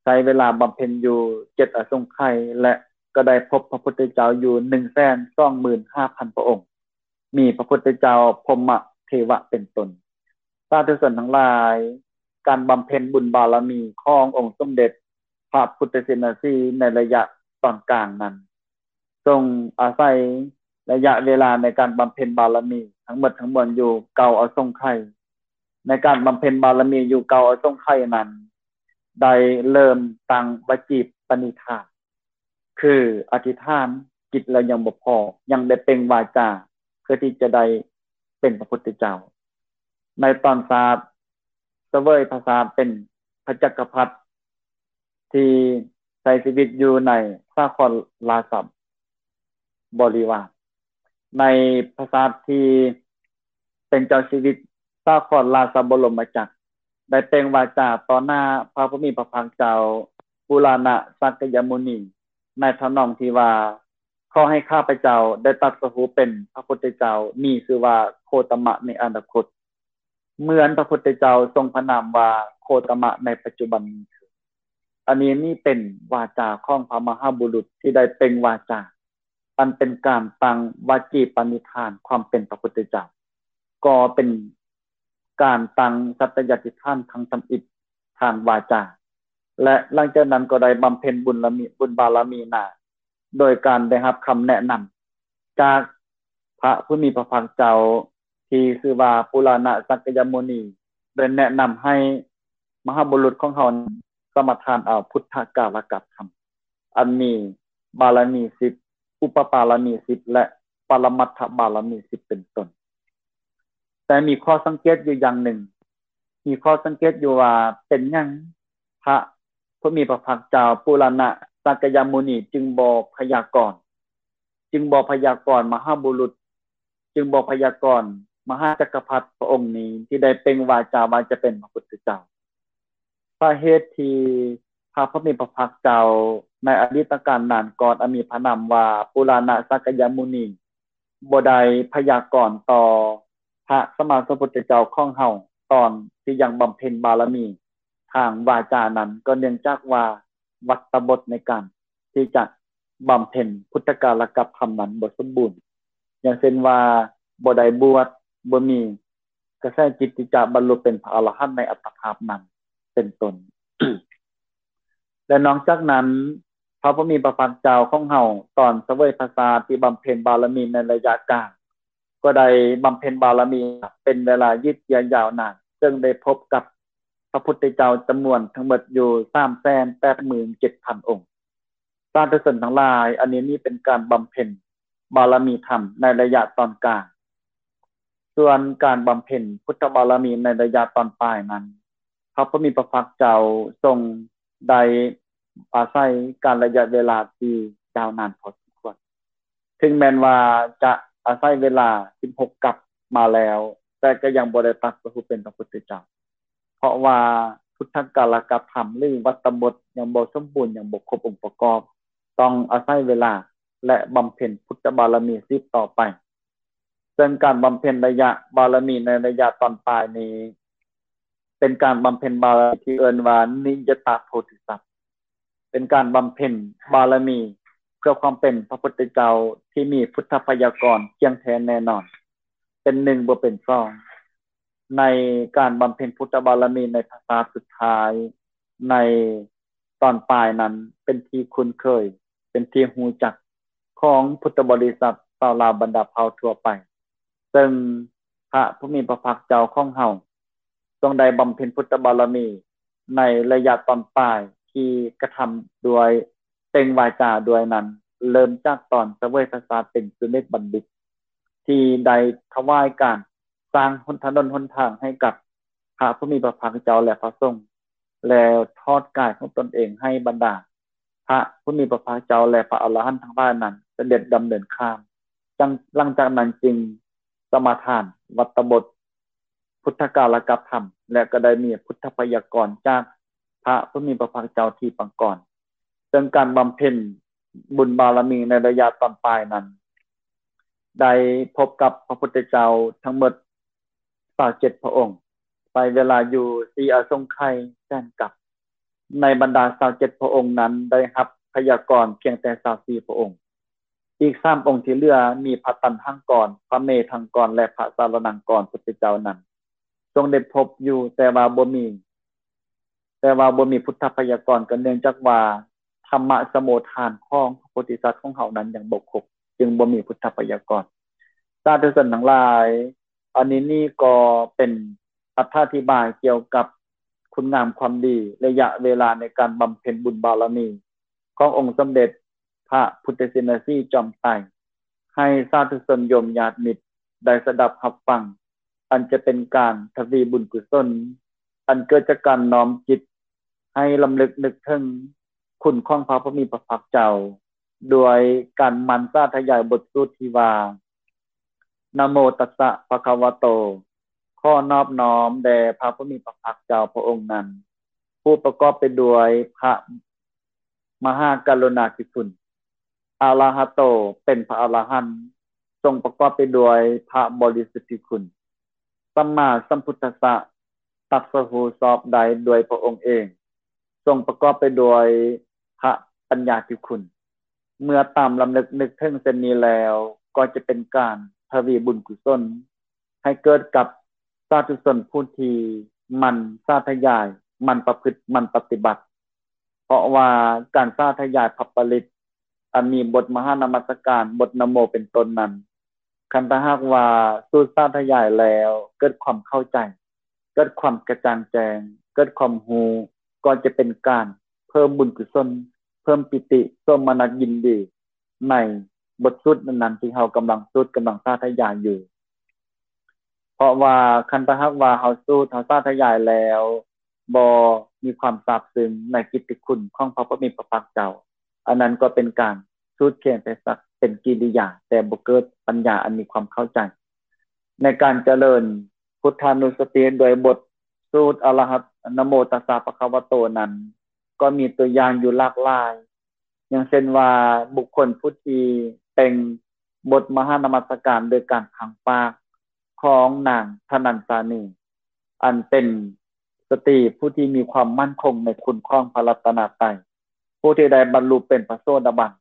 ໃຊ້ເວລາບຳເພັນຢູ່ເຈັດອະສົງໄຂ ແລະ ກໍໄດ້ພົບພະພຸດທະເຈົ້າຢູ່ໜຶ່ງແສນສອງໝື່ນຫ້າພັນພະອົງ, ມີພະພຸດທະເຈົ້າ ພົມມະເທວະເປັນຕົ້ນ. ສາທຸຊົນທັງຫຼາຍ, ການບຳເພັນບຸນບາລະມີຂອງອົງສົມເດັດພະພຸດທະເສນາສີໃນໄລຍະຕອນກາງນັ້ນ ຊົງອາໄສໄລຍະເວລາໃນການບຳເພັນບາລະມີທັງໝົດທັງມວນຢູ່ເກົ້າອະສົງໄຂ. ໃນການບຳເພັນບາລະມີຢູ່ເກົ້າອະສົງໄຂນັ້ນ ໄດ້ເລີ່ມຕັ້ງວະຈີປະນິທານ ຄືອະທິຖານຈິດແລ້ວຍັງບໍ່ພໍ, ຍັງໄດ້ເປັ່ງວາຈາເພື່ອທີ່ຈະໄດ້ເປັນພະພຸດທະເຈົ້າ. ໃນຕອນຊາດສະເຫວີຍພະຊາດເປັນພະຈັກກະພັດ ທີ່ໃຊ້ຊີວິດຢູ່ໃນສາຄອນລາຊະບໍລິວານ, ໃນພະຊາດທີ່ເປັນເຈົ້າຊີວິດສາຄອນລາຊະບໍລົມມະຈັກ ໄດ້ເປັ່ງວາຈາຕໍ່ໜ້າພະຜູ້ມີພະພາກເຈົ້າ ປຸລານະສັກກະຍະມຸນີ ໃນທຳນອງທີ່ວ່າ ຂໍໃຫ້ຂ້າພະເຈົ້າໄດ້ຕັດສະຮູ້ເປັນພະພຸດທະເຈົ້າ ມີຊື່ວ່າໂຄຕະມະໃນອະນາຄົດ ເໝືອນພະພຸດທະເຈົ້າຊົງພະນາມວ່າໂຄຕະມະໃນປັດຈຸບັນນີ້ເທີ້ນ. ອັນນີ້ນີ້ເປັນວາຈາຂອງພະມະຫາບຸລຸດທີ່ໄດ້ເປັ່ງວາຈາ, ອັນເປັນການຕັ້ງວະຈີປະນິທານຄວາມເປັນພະພຸດທະເຈົ້າ, ກໍເປັນການຕັ້ງສັດຕະຍາທິຖານຄັ້ງທຳອິດທາງວາຈາ ແລະ ຫຼັງຈາກນັ້ນກໍໄດ້ບຳເພັນບຸນລະມີ ບຸນບາລະມີໜ້າ ໂດຍການໄດ້ຮັບຄຳແນະນຳຈາກພະຜູ້ມີພະພາກເຈົ້າທີ່ຊື່ວ່າປຸລານະສັກກະຍະມຸນີ ໄດ້ແນະນຳໃຫ້ມະຫາບຸລຸດຂອງເຮົາສະມາທານເອົາພຸດທະກາລະກະທຳ ອັນມີບາລະມີສິບ, ອຸປະບາລະມີສິບ ແລະ ປະລະມັດຖະບາລະມີສິບເປັນຕົ້ນ. ແຕ່ມີຂໍ້ສັງເກດຢູ່ຢ່າງໜຶ່ງ, ມີຂໍ້ສັງເກດຢູ່ວ່າເປັນຫຍັງພະຜູ້ມີພະພາກເຈົ້າປຸລານະສັກກະຍະມຸນີຈຶ່ງບໍ່ພະຍາກອນ, ຈຶ່ງບໍ່ພະຍາກອນມະຫາບຸລຸດ, ຈຶ່ງບໍ່ພະຍາກອນມະຫາຈັກກະພັດພະອົງນີ້ທີ່ໄດ້ເປັ່ງວາຈາວ່າຈະເປັນພະພຸດທະເຈົ້າ. ສາເຫດທີ່ພະຜູ້ມີພະພາກເຈົ້າໃນອະດີດຕະການນານກ່ອນ ອັນມີພະນາມວ່າປຸລານະສັກກະຍະມຸນີ ບໍ່ໄດ້ພະຍາກອນຕໍ່ພະສຳມາສຳພຸດທະເຈົ້າຂອງເຮົາ ຕອນທີ່ຍັງບຳເພັນບາລະມີທາງວາຈານັ້ນ ກໍເນື່ອງຈາກວ່າວັດຕະບົດໃນການທີ່ຈະບຳເພັນພຸດທະກາລະກັບທຳນັ້ນບໍ່ສົມບູນ. ຢ່າງເຊັ່ນວ່າ ບໍ່ໄດ້ບວດ, ບໍ່ມີກະແສຈິດທີ່ຈະບັນລຸເປັນພະອະລະຫັນໃນອັດຕະພາບນັ້ນ ເປັນຕົ້ນ. ແລະນອກຈາກນັ້ນ, ພະຜູ້ມີພະພາກເຈົ້າຂອງເຮົາ ຕອນສະເຫວີຍພະຊາດທີ່ບຳເພັນບາລະມີໃນໄລຍະກາງ ກໍໄດ້ບຳເພັນບາລະມີເປັນເວລາຍືດເຍື້ອຍາວນານ, ເຊິ່ງໄດ້ພົບກັບພະພຸດທະເຈົ້າຈຳນວນທັງໝົດຢູ່ສາມແສນແປດໝື່ນເຈັດພັນອົງ. ສາທຸຊົນທັງຫຼາຍ, ອັນນີ້ນີ້ເປັນການບຳເພັນບາລະມີທຳໃນໄລຍະຕອນກາງ. ສ່ວນການບຳເພັນພຸດທະບາລະມີໃນໄລຍະຕອນປາຍນັ້ນ, ພະຜູ້ມີພະພາກເຈົ້າຊົງໄດ້ອາໄສການໄລຍະເວລາທີ່ຍາວນານພໍສົມຄວນ. ເຖິງແມ່ນວ່າຈະອາໄສເວລາສິບຫົກກັບມາແລ້ວ, ແຕ່ກໍຍັງບໍ່ໄດ້ຕັດສະຮູ້ເປັນພະພຸດທະເຈົ້າ, ເພາະວ່າພຸດທະກາລະກະທຳ ຫຼື ວັດຕະບົດຍັງບໍ່ສົມບູນ, ຍັງບໍ່ຄົບອົງປະກອບ, ຕ້ອງອາໄສເວລາ ແລະ ບຳເພັນພຸດທະບາລະມີສືບຕໍ່ໄປ. ເຊິ່ງການບຳເພັນໄລຍະບາລະມີໃນໄລຍະຕອນປາຍນີ້ ເປັນການບຳເພັນບາລະມີທີ່ເອີ້ນວ່ານິຍະຕາໂພທິສັດ, ເປັນການບຳເພັນບາລະມີເພື່ອຄວາມເປັນພະພຸດທະເຈົ້າທີ່ມີພຸດທະໄພຍາກອນທ່ຽງແທ້ແນ່ນອນ, ເປັນໜຶ່ງບໍ່ເປັນສອງ. ໃນການບຳເພັນພຸດທະບາລະມີໃນພະຊາດສຸດທ້າຍ ໃນຕອນປາຍນັ້ນ ເປັນທີ່ຄຸ້ນເຄີຍ, ເປັນທີ່ຮູ້ຈັກຂອງພຸດທະບໍລິສັດຊາວລາວບັນດາເຜົ່າທົ່ວໄປ. ເຊິ່ງພະຜູ້ມີພະພາກເຈົ້າຂອງເຮົາ ຊົງໄດ້ບຳເພັນພຸດທະບາລະມີໃນໄລຍະຕອນປາຍທີ່ກະທຳດ້ວຍເປັ່ງວາຈາດ້ວຍນັ້ນ, ເລີ່ມຈາກຕອນສະເຫວີຍພະຊາດເປັນສຸເມດບັນດິດ ທີ່ໄດ້ຖວາຍການສ້າງຫົນ ຖະໜົນຫົນທາງໃຫ້ກັບພະຜູ້ມີພະພາກເຈົ້າ ແລະ ພະສົງ, ແລ້ວທອດກາຍຂອງຕົນເອງໃຫ້ບັນດາ ພະຜູ້ມີພະພາກເຈົ້າ ແລະ ພະອະລະຫັນທັງຫຼາຍນັ້ນສະເດັດດຳເນີນຂ້າມ. ຈັ່ງ ຫຼັງຈາກນັ້ນຈຶ່ງສະມາທານວັດຕະບົດ ພຸດທະກາລະກັບທຳ ແລະ ກໍໄດ້ມີພຸດທະໄພຍາກອນຈາກພະຜູ້ມີພະພາກເຈົ້າທີ່ປາງກອນ. ເຊິ່ງການບຳເພັນບຸນບາລະມີໃນໄລຍະຕອນປາຍນັ້ນ ໄດ້ພົບກັບພະພຸດທະເຈົ້າທັງໝົດຊາວເຈັດພະອົງ, ໃຊ້ເວລາຢູ່ສີ່ອະສົງໄຂຍແສນກັບ. ໃນບັນດາຊາວເຈັດພະອົງນັ້ນ ໄດ້ຮັບໄພຍາກອນພຽງແຕ່ຊາວສີ່ພະອົງ. ອີກສາມອົງທີ່ເຫຼືອ ມີພະຕັນຫັງກອນ, ພະເມທັງກອນ ແລະ ພະສາລະນັງກອນພຸດທະເຈົ້ານັ້ນ ຊົງໄດ້ພົບຢູ່, ແຕ່ວ່າບໍ່ມີ ແຕ່ວ່າບໍ່ມີພຸດທະໄພຍາກອນ ກໍເນື່ອງຈາກວ່າທຳມະສະໂມທານຂອງພະໂພທິສັດຂອງເຮົານັ້ນຍັງບໍ່ຄົບ, ຈຶ່ງບໍ່ມີພຸດທະໄພຍາກອນ. ສາທຸຊົນທັງຫຼາຍ, ອັນນີ້ນີ້ກໍເປັນອະຖາທິບາຍກ່ຽວກັບຄຸນງາມຄວາມດີ, ໄລຍະເວລາໃນການບຳເພັນບຸນບາລະມີຂອງອົງສົມເດັດພະພຸດທະຊິນນະສີຈອມໄຕ ໃຫ້ສາທຸຊົນໂຍມຍາດມິດໄດ້ສະດັບຮັບຟັງ, ອັນຈະເປັນການທະວີບຸນກຸສົນ ອັນເກີດຈາກການນ້ອມຈິດໃຫ້ລຳລຶກນຶກເຖິງຄຸນຂອງພະຜູ້ມີພະພາກເຈົ້າ ດ້ວຍການໝັ່ນສາທະຍາຍບົດສູດທີ່ວ່າ ນະໂມຕັດສະພະຄະວະໂຕ, ຂໍນອບນ້ອມແດ່ພະຜູ້ມີພະພາກເຈົ້າພະອົງນັ້ນ, ຜູ້ປະກອບໄປດ້ວຍພະມະຫາກະລຸນາທິຄຸນ, ອະລະຫະໂຕ, ເປັນພະອະລະຫັນ, ຊົງປະກອບໄປດ້ວຍພະບໍລິສຸດທິຄຸນ, ສຳມາສຳພຸດທັດສະ, ຕັດສະຮູ້ຊອບໄດ້ດ້ວຍພະອົງເອງ, ຊົງປະກອບໄປດ້ວຍພະປັນຍາທິຄຸນ. ເມື່ອຕາມລຳລຶກນຶກເຖິງເຊັ່ນນີ້ແລ້ວ, ກໍຈະເປັນການທະວີບຸນກຸສົນໃຫ້ເກີດກັບສາທຸຊົນຜູ້ທີ່ໝັ່ນສາທະຍາຍ, ໝັ່ນປະພຶດ, ໝັ່ນປະຕິບັດ. ເພາະວ່າການສາທະຍາຍພະປະລິດ ອັນມີບົດມະຫານະມັດສະການ, ບົດນະໂມເປັນຕົ້ນນັ້ນ, ຄັນຖ້າຫາກວ່າສູດສາທະຍາຍແລ້ວເກີດຄວາມເຂົ້າໃຈ, ເກີດຄວາມກະຈ່າງແຈ້ງ, ເກີດຄວາມຮູ້, ກໍຈະເປັນການເພີ່ມບຸນກຸສົນ, ເພີ່ມປີຕິ, ໂສມະນັດຍິນດີໃນບົດສູດນັ້ນໆ ທີ່ເຮົາກຳລັງສູດ, ກຳລັງສາທະຍາຍຢູ່. ເພາະວ່າຄັນຖ້າຫາກວ່າເຮົາສູດ, ເຮົາສາທະຍາຍແລ້ວ ບໍ່ມີຄວາມຊາບຊຶ້ງໃນກິດຕິຄຸນຂອງພະຜູ້ມີພະພາກເຈົ້າ, ອັນນັ້ນກໍເປັນການສູດພຽງແຕ່ສັກເປັນກິລິຍາ, ແຕ່ບໍ່ເກີດປັນຍາອັນມີຄວາມເຂົ້າໃຈ. ໃນການຈະເລີນພຸດທານຸສະຕິດ້ວຍບົດສູດອະລະຫັດ ນະໂມຕັດສະພະຄະວະໂຕນັ້ນ, ກໍມີຕົວຢ່າງຢູ່ຫຼາກຫຼາຍ, ຢ່າງເຊັ່ນວ່າ ບຸກຄົນຜູ້ທີ່ເປັ່ງບົດມະຫານະມັດສະການໂດຍການພັງປາກຂອງນາງທະນັນສານີ, ອັນເປັນສະຕີຜູ້ທີ່ມີຄວາມໝັ້ນຄົງໃນຄຸນຂອງພະລັດຕະນະໄຕ, ຜູ້ທີ່ໄດ້ບັນລຸເປັນພະໂສດາບັນ.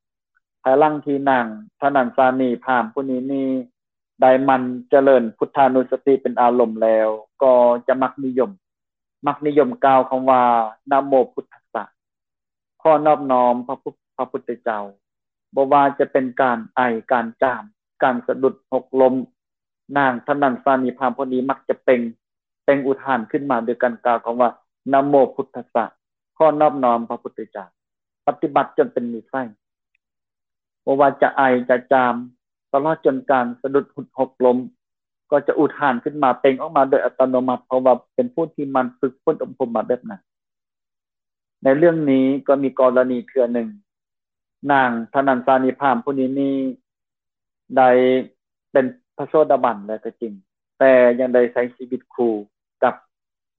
ພາຍຫຼັງທີ່ນາງທະນັນສານີພາມຜູ້ນີ້ນີ້ ໄດ້ໝັ່ນຈະເລີນພຸດທານຸສະຕິເປັນອາລົມແລ້ວ ກໍຈະມັກນິຍົມ ມັກນິຍົມກ່າວຄຳວ່າ ນະໂມພຸດທັດສະ ຂໍນອບນ້ອມພະພຸ- ພະພຸດທະເຈົ້າ. ບໍ່ວ່າຈະເປັນການໄອ, ການຈາມ, ການສະດຸດ, ຫົກລົ້ມ, ນາງທະນັນສານີພາມຜູ້ນີ້ມັກຈະເປັ່ງ ເປັ່ງອຸທານຂຶ້ນມາດ້ວຍການກ່າວຄຳວ່າ ນະໂມພຸດທັດສະ ຂໍນອບນ້ອມພະພຸດທະເຈົ້າ. ປະຕິບັດຈົນເປັນນິໄສ ບໍ່ວ່າຈະໄອຈະຈາມ ຕະຫຼອດຈົນການສະດຸດ ຫົກລົ້ມ ກໍຈະອຸທານຂຶ້ນມາ ເປັ່ງອອກມາໂດຍອັດຕະໂນມັດ ເພາະວ່າເປັນຜູ້ທີ່ໝັ່ນຝຶກຝົນອົບຮົມມາແບບນັ້ນ. ໃນເລື່ອງນີ້ກໍມີກໍລະນີເທື່ອໜຶ່ງ ນາງທະນັນສານີພາມຜູ້ນີ້ນີ້ ໄດ້ເປັນພະໂສດາບັນແລ້ວກໍຈິງ, ແຕ່ຍັງໄດ້ໃຊ້ຊີວິດຄູ່ກັບ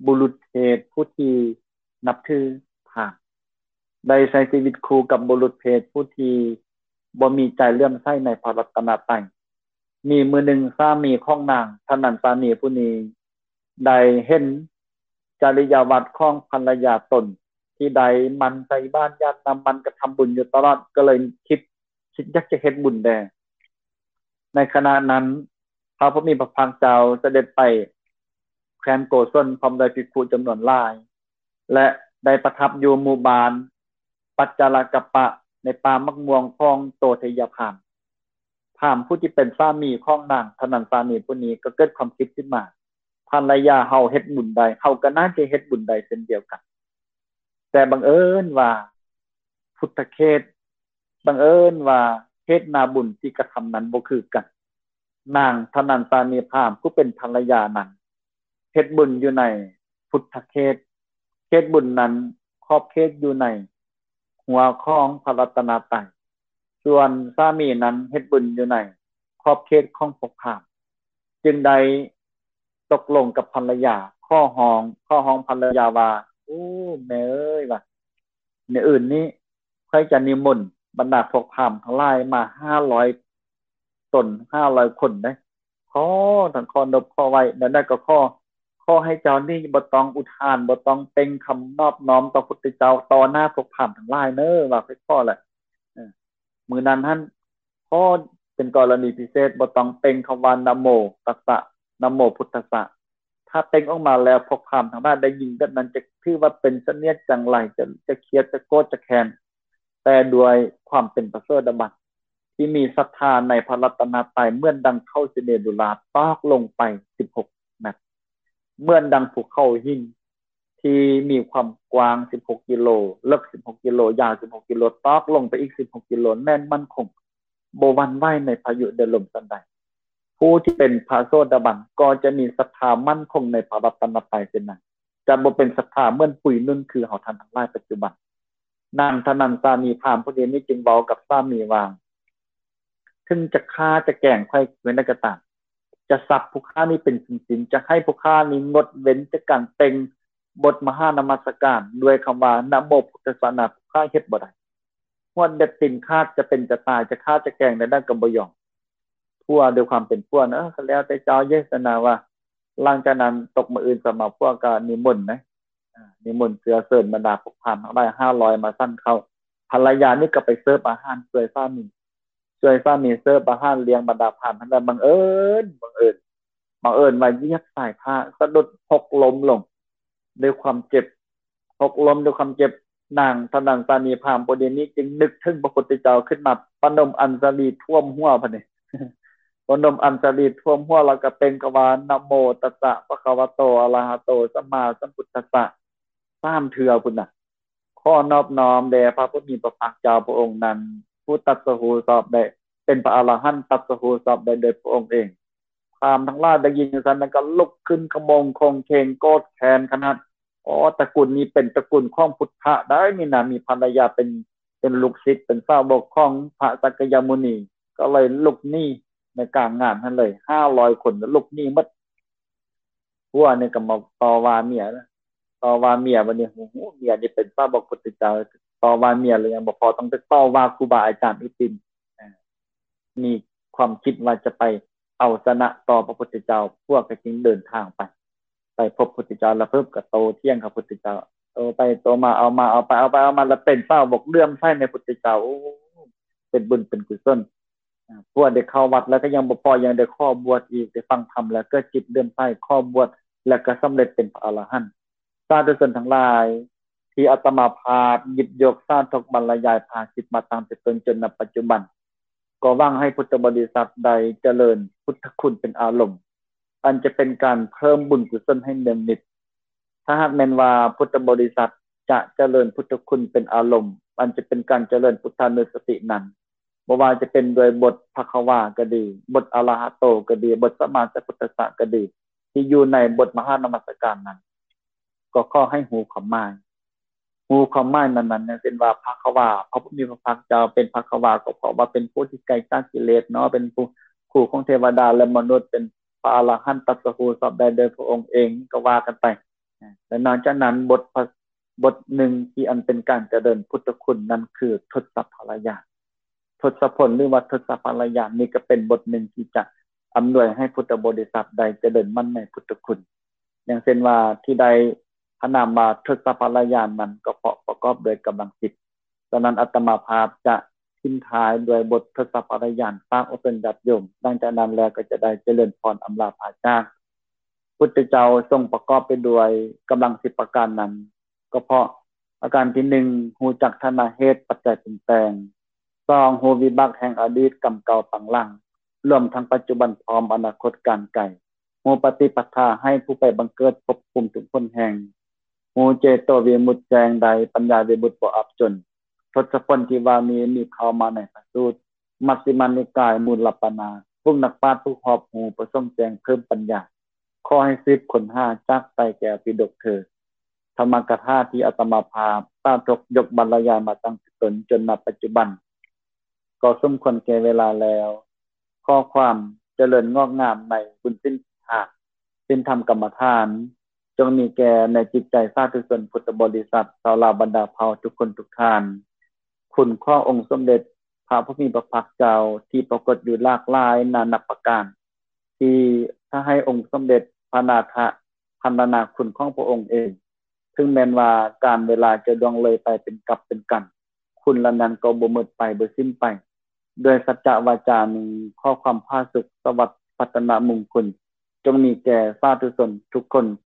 ບຸລຸດເພດຜູ້ທີ່ນັບຖືພາມ, ໄດ້ໃຊ້ຊີວິດຄູ່ກັບບຸລຸດເພດຜູ້ທີ່ບໍ່ມີໃຈເຫຼື້ອມໃສໃນພະລັດຕະນະໄຕ. ມີມື້ໜຶ່ງ ສາມີຂອງນາງທະນັນສານີຜູ້ນີ້ ໄດ້ເຫັນຈະລິຍາວັດຂອງພັນລະຍາຕົນ ທີ່ໄດ້ໝັ່ນໃສ່ບາດຢາດນ້ຳມັນ ກະທຳບຸນຢູ່ຕະຫຼອດ ກໍເລີຍຄິດ ຄິດຢາກຈະເຮັດບຸນແດ່. ໃນຂະນະນັ້ນ ພະຜູ້ມີພະພາກເຈົ້າສະເດັດໄປແຄວ້ນໂກສົນ ພ້ອມດ້ວຍພິກຂຸຈຳນວນຫຼາຍ ແລະ ໄດ້ປະທັບຢູ່ໝູ່ບ້ານປັດຈາລະກະປະ ໃນປ່າໝາກມ່ວງຂອງໂຕໄທຍະພາມ. ພາມຜູ້ທີ່ເປັນສາມີຂອງນາງທະນັນສານີຜູ້ນີ້ ກໍເກີດຄວາມຄິດຂຶ້ນມາ, ພັນລະຍາເຮົາເຮັດບຸນໄດ້ ເຮົາກໍໜ້າຈະເຮັດບຸນໄດ້ເຊັ່ນດຽວກັນ. ແຕ່ບັງເອີນວ່າພຸດທະເຂດ ບັງເອີນວ່າເຂດໜ້າບຸນທີ່ກະທຳນັ້ນບໍ່ຄືກັນ. ນາງທະນັນສານີພາມຜູ້ເປັນພັນລະຍານັ້ນ ເຮັດບຸນຢູ່ໃນພຸດທະເຂດ, ເຂດບຸນນັ້ນຂອບເຂດຢູ່ໃນຫົວຂອງພະລັດຕະນະໄຕ, ສ່ວນສາມີນັ້ນເຮັດບຸນຢູ່ໃນຂອບເຂດຂອງພວກພາມ, ຈຶ່ງໄດ້ຕົກລົງກັບພັນລະຍາ, ຂໍຮ້ອງ, ຂໍຮ້ອງພັນລະຍາວ່າ, ໂອ້ ແມ່ເອີຍ, ວ່າ ມື້ອື່ນນີ້ ຂ້ອຍຈະນິມົນບັນດາພວກພາມທັງຫຼາຍມາຫ້າຮ້ອຍຕົນ, ຫ້າຮ້ອຍຄົນເດ້. ຂໍທັງຂໍນົບຂໍໄຫວ້, ແນວໃດກໍຂໍ, ຂໍໃຫ້ເຈົ້ານີ້ບໍ່ຕ້ອງອຸທານ, ບໍ່ຕ້ອງເປັ່ງຄຳນອບນ້ອມຕໍ່ພຸດທະເຈົ້າຕໍ່ໜ້າພວກພາມທັງຫຼາຍເນີ, ວ່າຂ້ອຍຂໍແຫຼະ. ເອີ ມື້ນັ້ນຫັ້ນ ຂໍເປັນກໍລະນີພິເສດ, ບໍ່ຕ້ອງເປັ່ງຄຳວ່າ ນະໂມຕັດສະ, ນະໂມພຸດທັດສະ. ຖ້າເປັ່ງອອກມາແລ້ວ ພວກພາມທັງຫຼາຍໄດ້ຍິນແບບນັ້ນ ຈະຖືວ່າເປັນສະເໜຽດຈັງໄລ, ຈະ, ຈະຄຽດ, ຈະໂກດ, ຈະແຄ້ນ, ແຕ່ດ້ວຍຄວາມເປັນພະໂສດາບັນ ທີ່ມີສັດທາໃນພະລັດຕະນະໄຕ ເໝືອນດັ່ງເຂົ້າສິເນດູລາຕອກລົງໄປສິບຫົກແມັດ, ເໝືອນດັ່ງພູເຂົາຫີນທີ່ມີຄວາມກວ້າງສິບຫົກກິໂລ, ເລິກສິບຫົກກິໂລ, ຍາວສິບຫົກກິໂລ, ຕອກລົງໄປອີກສິບຫົກກິໂລ, ແໜ້ນໝັ້ນຄົງ, ບໍ່ຫວັ່ນໄຫວໃນພາຍຸແດດລົມສັນໃດ. ຜູ້ທີ່ເປັນພະໂສດາບັນກໍຈະມີສັດທາໝັ້ນຄົງໃນພະລັດຕະນະໄຕເຊັ່ນນັ້ນ, ຈະບໍ່ເປັນສັດທາເໝືອນປຸຍນຸ່ນຄືເຮົາທ່ານທັງຫຼາຍປັດຈຸບັນ. ນາງທະນັນສານີພາມຜູ້ນີ້ຈຶ່ງເວົ້າກັບສາມີວ່າ, ເຖິງຈະຂ້າຈະແກງຂ້ອຍແນວໃດກໍຕາມ, ຈະສັບຜູ້ຂ້ານີ້ເປັນຊິ້ນໆ, ຈະໃຫ້ຜູ້ຂ້ານີ້ງົດເວັ້ນຈາກການເປັ່ງບົດມະຫານະມັດສະການດ້ວຍຄຳວ່າ ນະໂມພຸດທັດສະນະ, ຜູ້ຂ້າເຮັດບໍ່ໄດ້. ຮວດເລັບຕີນຂາດ, ຈະເປັນຈະຕາຍ, ຈະຂ້າຈະແກງແນວໃດກໍບໍ່ຍອມ. ຜົວດ້ວຍຄວາມເປັນຜົວນະ, ເອີ ກໍແລ້ວແຕ່ເຈົ້າເຢ ຊັ້ນນະ ວ່າ. ຫຼັງຈາກນັ້ນຕົກມື້ອື່ນສະມາ ຜົວກໍນິມົນນະ, ນິມົນເຊື້ອເຊີນບັນດາພວກພາມທັງຫຼາຍຫ້າຮ້ອຍມາສັນເຂົ້າ. ພັນລະຍານີ້ກໍໄປເສີບອາຫານຊ່ວຍສາມີ, ຊ່ວຍສາມີເສີບອາຫານລ້ຽງບັນດາພາມທັງຫຼາຍ. ບັງເອີນ, ບັງເອີນ, ບັງເອີນວ່າຢຽບສາຍຜ້າສະດຸດຫົກລົ້ມລົງດ້ວຍຄວາມເຈັບ, ຫົກລົ້ມດ້ວຍຄວາມເຈັບ. ນາງທະນັນສານີພາມຜູ້ນີ້ຈຶ່ງນຶກເຖິງພະພຸດທະເຈົ້າຂຶ້ນມາ, ປະນົມອັນສະລີຖ້ວມຫົວ ບັດນີ້ ປະນົມອັນສະລີຖ້ວມຫົວ ແລ້ວກໍເປັ່ງຄຳວ່າ ນະໂມຕັດສະ ພະຄະວະໂຕ ອະລະຫະໂຕ ສຳມາສຳພຸດທັດສະ ສາມເທື່ອພຸ້ນນະ. ຂໍນອບນ້ອມແດ່ພະຜູ້ມີພະພາກເຈົ້າພະອົງນັ້ນ ຜູ້ຕັດສະຮູ້ຊອບໄດ້ເປັນພະອະລະຫັນ, ຕັດສະຮູ້ຊອບໄດ້ໂດຍພະອົງເອງ. ພາມທັງຫຼາຍໄດ້ຍິນຈັ່ງຊັ້ນ ແລ້ວກໍລຸກຂຶ້ນຂະໂມງໂຄງເຄງ ໂກດແຄ້ນຂະໜາດ. ອໍ ຕະກຸນນີ້ເປັນຕະກຸນຂອງພຸດທະໄດ໋ນີ້ນະ, ມີພັນລະຍາເປັນ, ເປັນລູກສິດ, ເປັນສາວົກຂອງພະສັກກະຍະມຸນີ, ກໍເລີຍລຸກໜີໃນກາງງານຫັ້ນເລີຍ, ຫ້າຮ້ອຍຄົນລຸກໜີໝົດ. ຜົວນີ້ກໍມາຕໍ່ວ່າເມຍ, ຕໍ່ວ່າເມຍ. ບັດນີ້ ໂອ້ໂຫ ເມຍນີ້ເປັນສາວົກພຸດທະເຈົ້າ, ຕໍ່ວ່າເມຍແລ້ວຍັງບໍ່ພໍ, ຕ້ອງໄປຕໍ່ວ່າຄູບາອາຈານອີກຕື່ມ. ມີຄວາມຄິດວ່າຈະໄປເອົາຊະນະຕໍ່ພະພຸດທະເຈົ້າ, ພວກກໍຈຶ່ງເດີນທາງໄປ, ໄປພົບພຸດທະເຈົ້າ ແລ້ວເພິ່ນກໍໂຕ້ຖຽງກັບພຸດທະເຈົ້າ, ໂຕ້ໄປໂຕ້ມາ, ເອົາມາເອົາໄປ, ເອົາໄປເອົາມາ ແລ້ວເປັນສາວົກເຫຼື້ອມໃສໃນພຸດທະເຈົ້າ. ໂອ້ ເປັນບຸນເປັນກຸສົນ. ພວກໄດ້ເຂົ້າວັດແລ້ວກໍຍັງບໍ່ພໍ ຍັງໄດ້ຂໍບວດອີກ ໄດ້ຟັງທຳແລ້ວເກີດຈິດເຫຼື້ອມໃສ ຂໍບວດ ແລ້ວກໍສຳເລັດເປັນພະອະລະຫັນ. ສາທຸຊົນທັງຫຼາຍ ທີ່ອາດຕະມາພາບຫຍິບຍົກສາທົກບັນລະຍາຍພາສິດມາຕັ້ງແຕ່ຕົ້ນຈົນນະປັດຈຸບັນ ກໍຫວັງໃຫ້ພຸດທະບໍລິສັດໄດ້ຈະເລີນພຸດທະຄຸນເປັນອາລົມ ອັນຈະເປັນການເພີ່ມບຸນກຸສົນໃຫ້ເນືອງນິດ. ຖ້າຫາກແມ່ນວ່າພຸດທະບໍລິສັດຈະຈະເລີນພຸດທະຄຸນເປັນອາລົມ ອັນຈະເປັນການຈະເລີນພຸດທານຸສະຕິນັ້ນ ບໍ່ວ່າຈະເປັນດ້ວຍບົດພະຄະວາກໍດີ, ບົດອະລະຫະໂຕກໍດີ, ບົດສະມາສະພຸດທັດສະກໍດີ ທີ່ຢູ່ໃນບົດມະຫານະມັດສະການນັ້ນ ກໍຂໍໃຫ້ຮູ້ຄວາມໝາຍ. ຮູ້ຄວາມໝາຍນັ້ນໆ ຢ່າງເຊັ່ນວ່າ ພະຄະວາ, ພະຜູ້ມີພະພາກເຈົ້າເປັນພະຄະວາ ກໍເພາະວ່າເປັນຜູ້ທີ່ໄກຈາກກິເລດເນາະ, ເປັນຜູ້ ຄູຂອງເທວະດາ ແລະ ມະນຸດ, ເປັນພະອະລະຫັນ ຕັດສະຮູ້ຊອບໄດ້ໂດຍພະອົງເອງ ກໍວ່າກັນໄປ. ແລະ ນອກຈາກນັ້ນ ບົດພະ ບົດໜຶ່ງທີ່ອັນເປັນການຈະເລີນພຸດທະຄຸນນັ້ນຄືທົດສະພະລະຍານ. ທົດສະຜົນ ຫຼືວ່າທົດສະພະລະຍານນີ້ ກໍເປັນບົດໜຶ່ງທີ່ຈະອຳນວຍໃຫ້ພຸດທະບໍລິສັດໄດ້ຈະເລີນໝັ້ນໃນພຸດທະຄຸນ. ຢ່າງເຊັ່ນວ່າ ທີ່ໄດ້ພະນາມວ່າທົດສະພະລະຍານນັ້ນ ກໍເພາະປະກອບດ້ວຍກຳລັງສິບ. ສະນັ້ນ ອາດຕະມາພາບຈະຖິ້ມທ້າຍດ້ວຍບົດທົດສະພະລະຍານ ຝາກອອກເຖິງຍາດໂຍມ. ຫຼັງຈາກນັ້ນແລ້ວກໍຈະໄດ້ຈະເລີນພອນອຳລາພາຈາກ. ພຸດທະເຈົ້າຊົງປະກອບໄປດ້ວຍກຳລັງສິບປະການນັ້ນ ກໍເພາະ ປະການທີໜຶ່ງ ຮູ້ຈັກຖານະເຫດປັດໄຈປຸງແຕ່ງ, ສອງ ຮູ້ວິບາກແຫ່ງອະດີດກຳເກົ່າປາງຫຼັງ ລວມທັງປັດຈຸບັນພ້ອມອະນາຄົດການໄກ, ຮູ້ປະຕິປະທາໃຫ້ຜູ້ໄປບັງເກີດພົບພູມທຸກຫົນແຫ່ງ, ຮູ້ເຈໂຕວິມຸດແຈ້ງໄດ້ ປັນຍາວິມຸດບໍ່ອັບຈົນ. ທົດສະຜົນທີ່ວ່ານີ້ມີເຂົ້າມາໃນພະສູດ ມັດຊິມານິກາຍ ມູນລະປານາດ. ພວກນັກປາດຜູ້ຮອບຮູ້ປະສົງແຈ້ງເພີ່ມປັນຍາ ຂໍໃຫ້ສືບຄົ້ນຫາຈາກໄຕແກ້ວປິດົກເທີ. ທຳມະກະຖາທີ່ອາດຕະມາພາບສາທົກຍົກບັນລະຍາຍມາຕັ້ງແຕ່ຕົ້ນຈົນນະປັດຈຸບັນ ກໍສົມຄວນແກ່ເວລາແລ້ວ. ຂໍຄວາມຈະເລີນງອກງາມໃນບຸນສິນທານ ສິນທຳກຳມະຖານ ຈົ່ງມີແກ່ໃນຈິດໃຈສາທຸຊົນພຸດທະບໍລິສັດ ຊາວລາວບັນດາເຜົ່າທຸກຄົນທຸກທ່ານ. ຄຸນຂອງອົງສົມເດັດພະຜູ້ມີພະພາກເຈົ້າທີ່ປາກົດຢູ່ຫຼາກຫຼາຍນານັບປະການ ທີ່ພາໃຫ້ອົງສົມເດັດພະນາຖະພັນລະນາຄຸນຂອງພະອົງເອງ. ເຖິງແມ່ນວ່າການເວລາຈະລ່ວງເລີຍໄປເປັນກັບເປັນກັນ, ຄຸນເຫຼົ່ານັ້ນກໍບໍ່ໝົດໄປ, ບໍ່ສິ້ນໄປ. ດ້ວຍສັດຈະວາຈານີ້, ຂໍຄວາມຜາສຸກ, ສະຫວັດ, ພັດທະນະມຸງຄຸນ ຈົ່ງມີແກ່ສາທຸຊົນທຸກຄົນ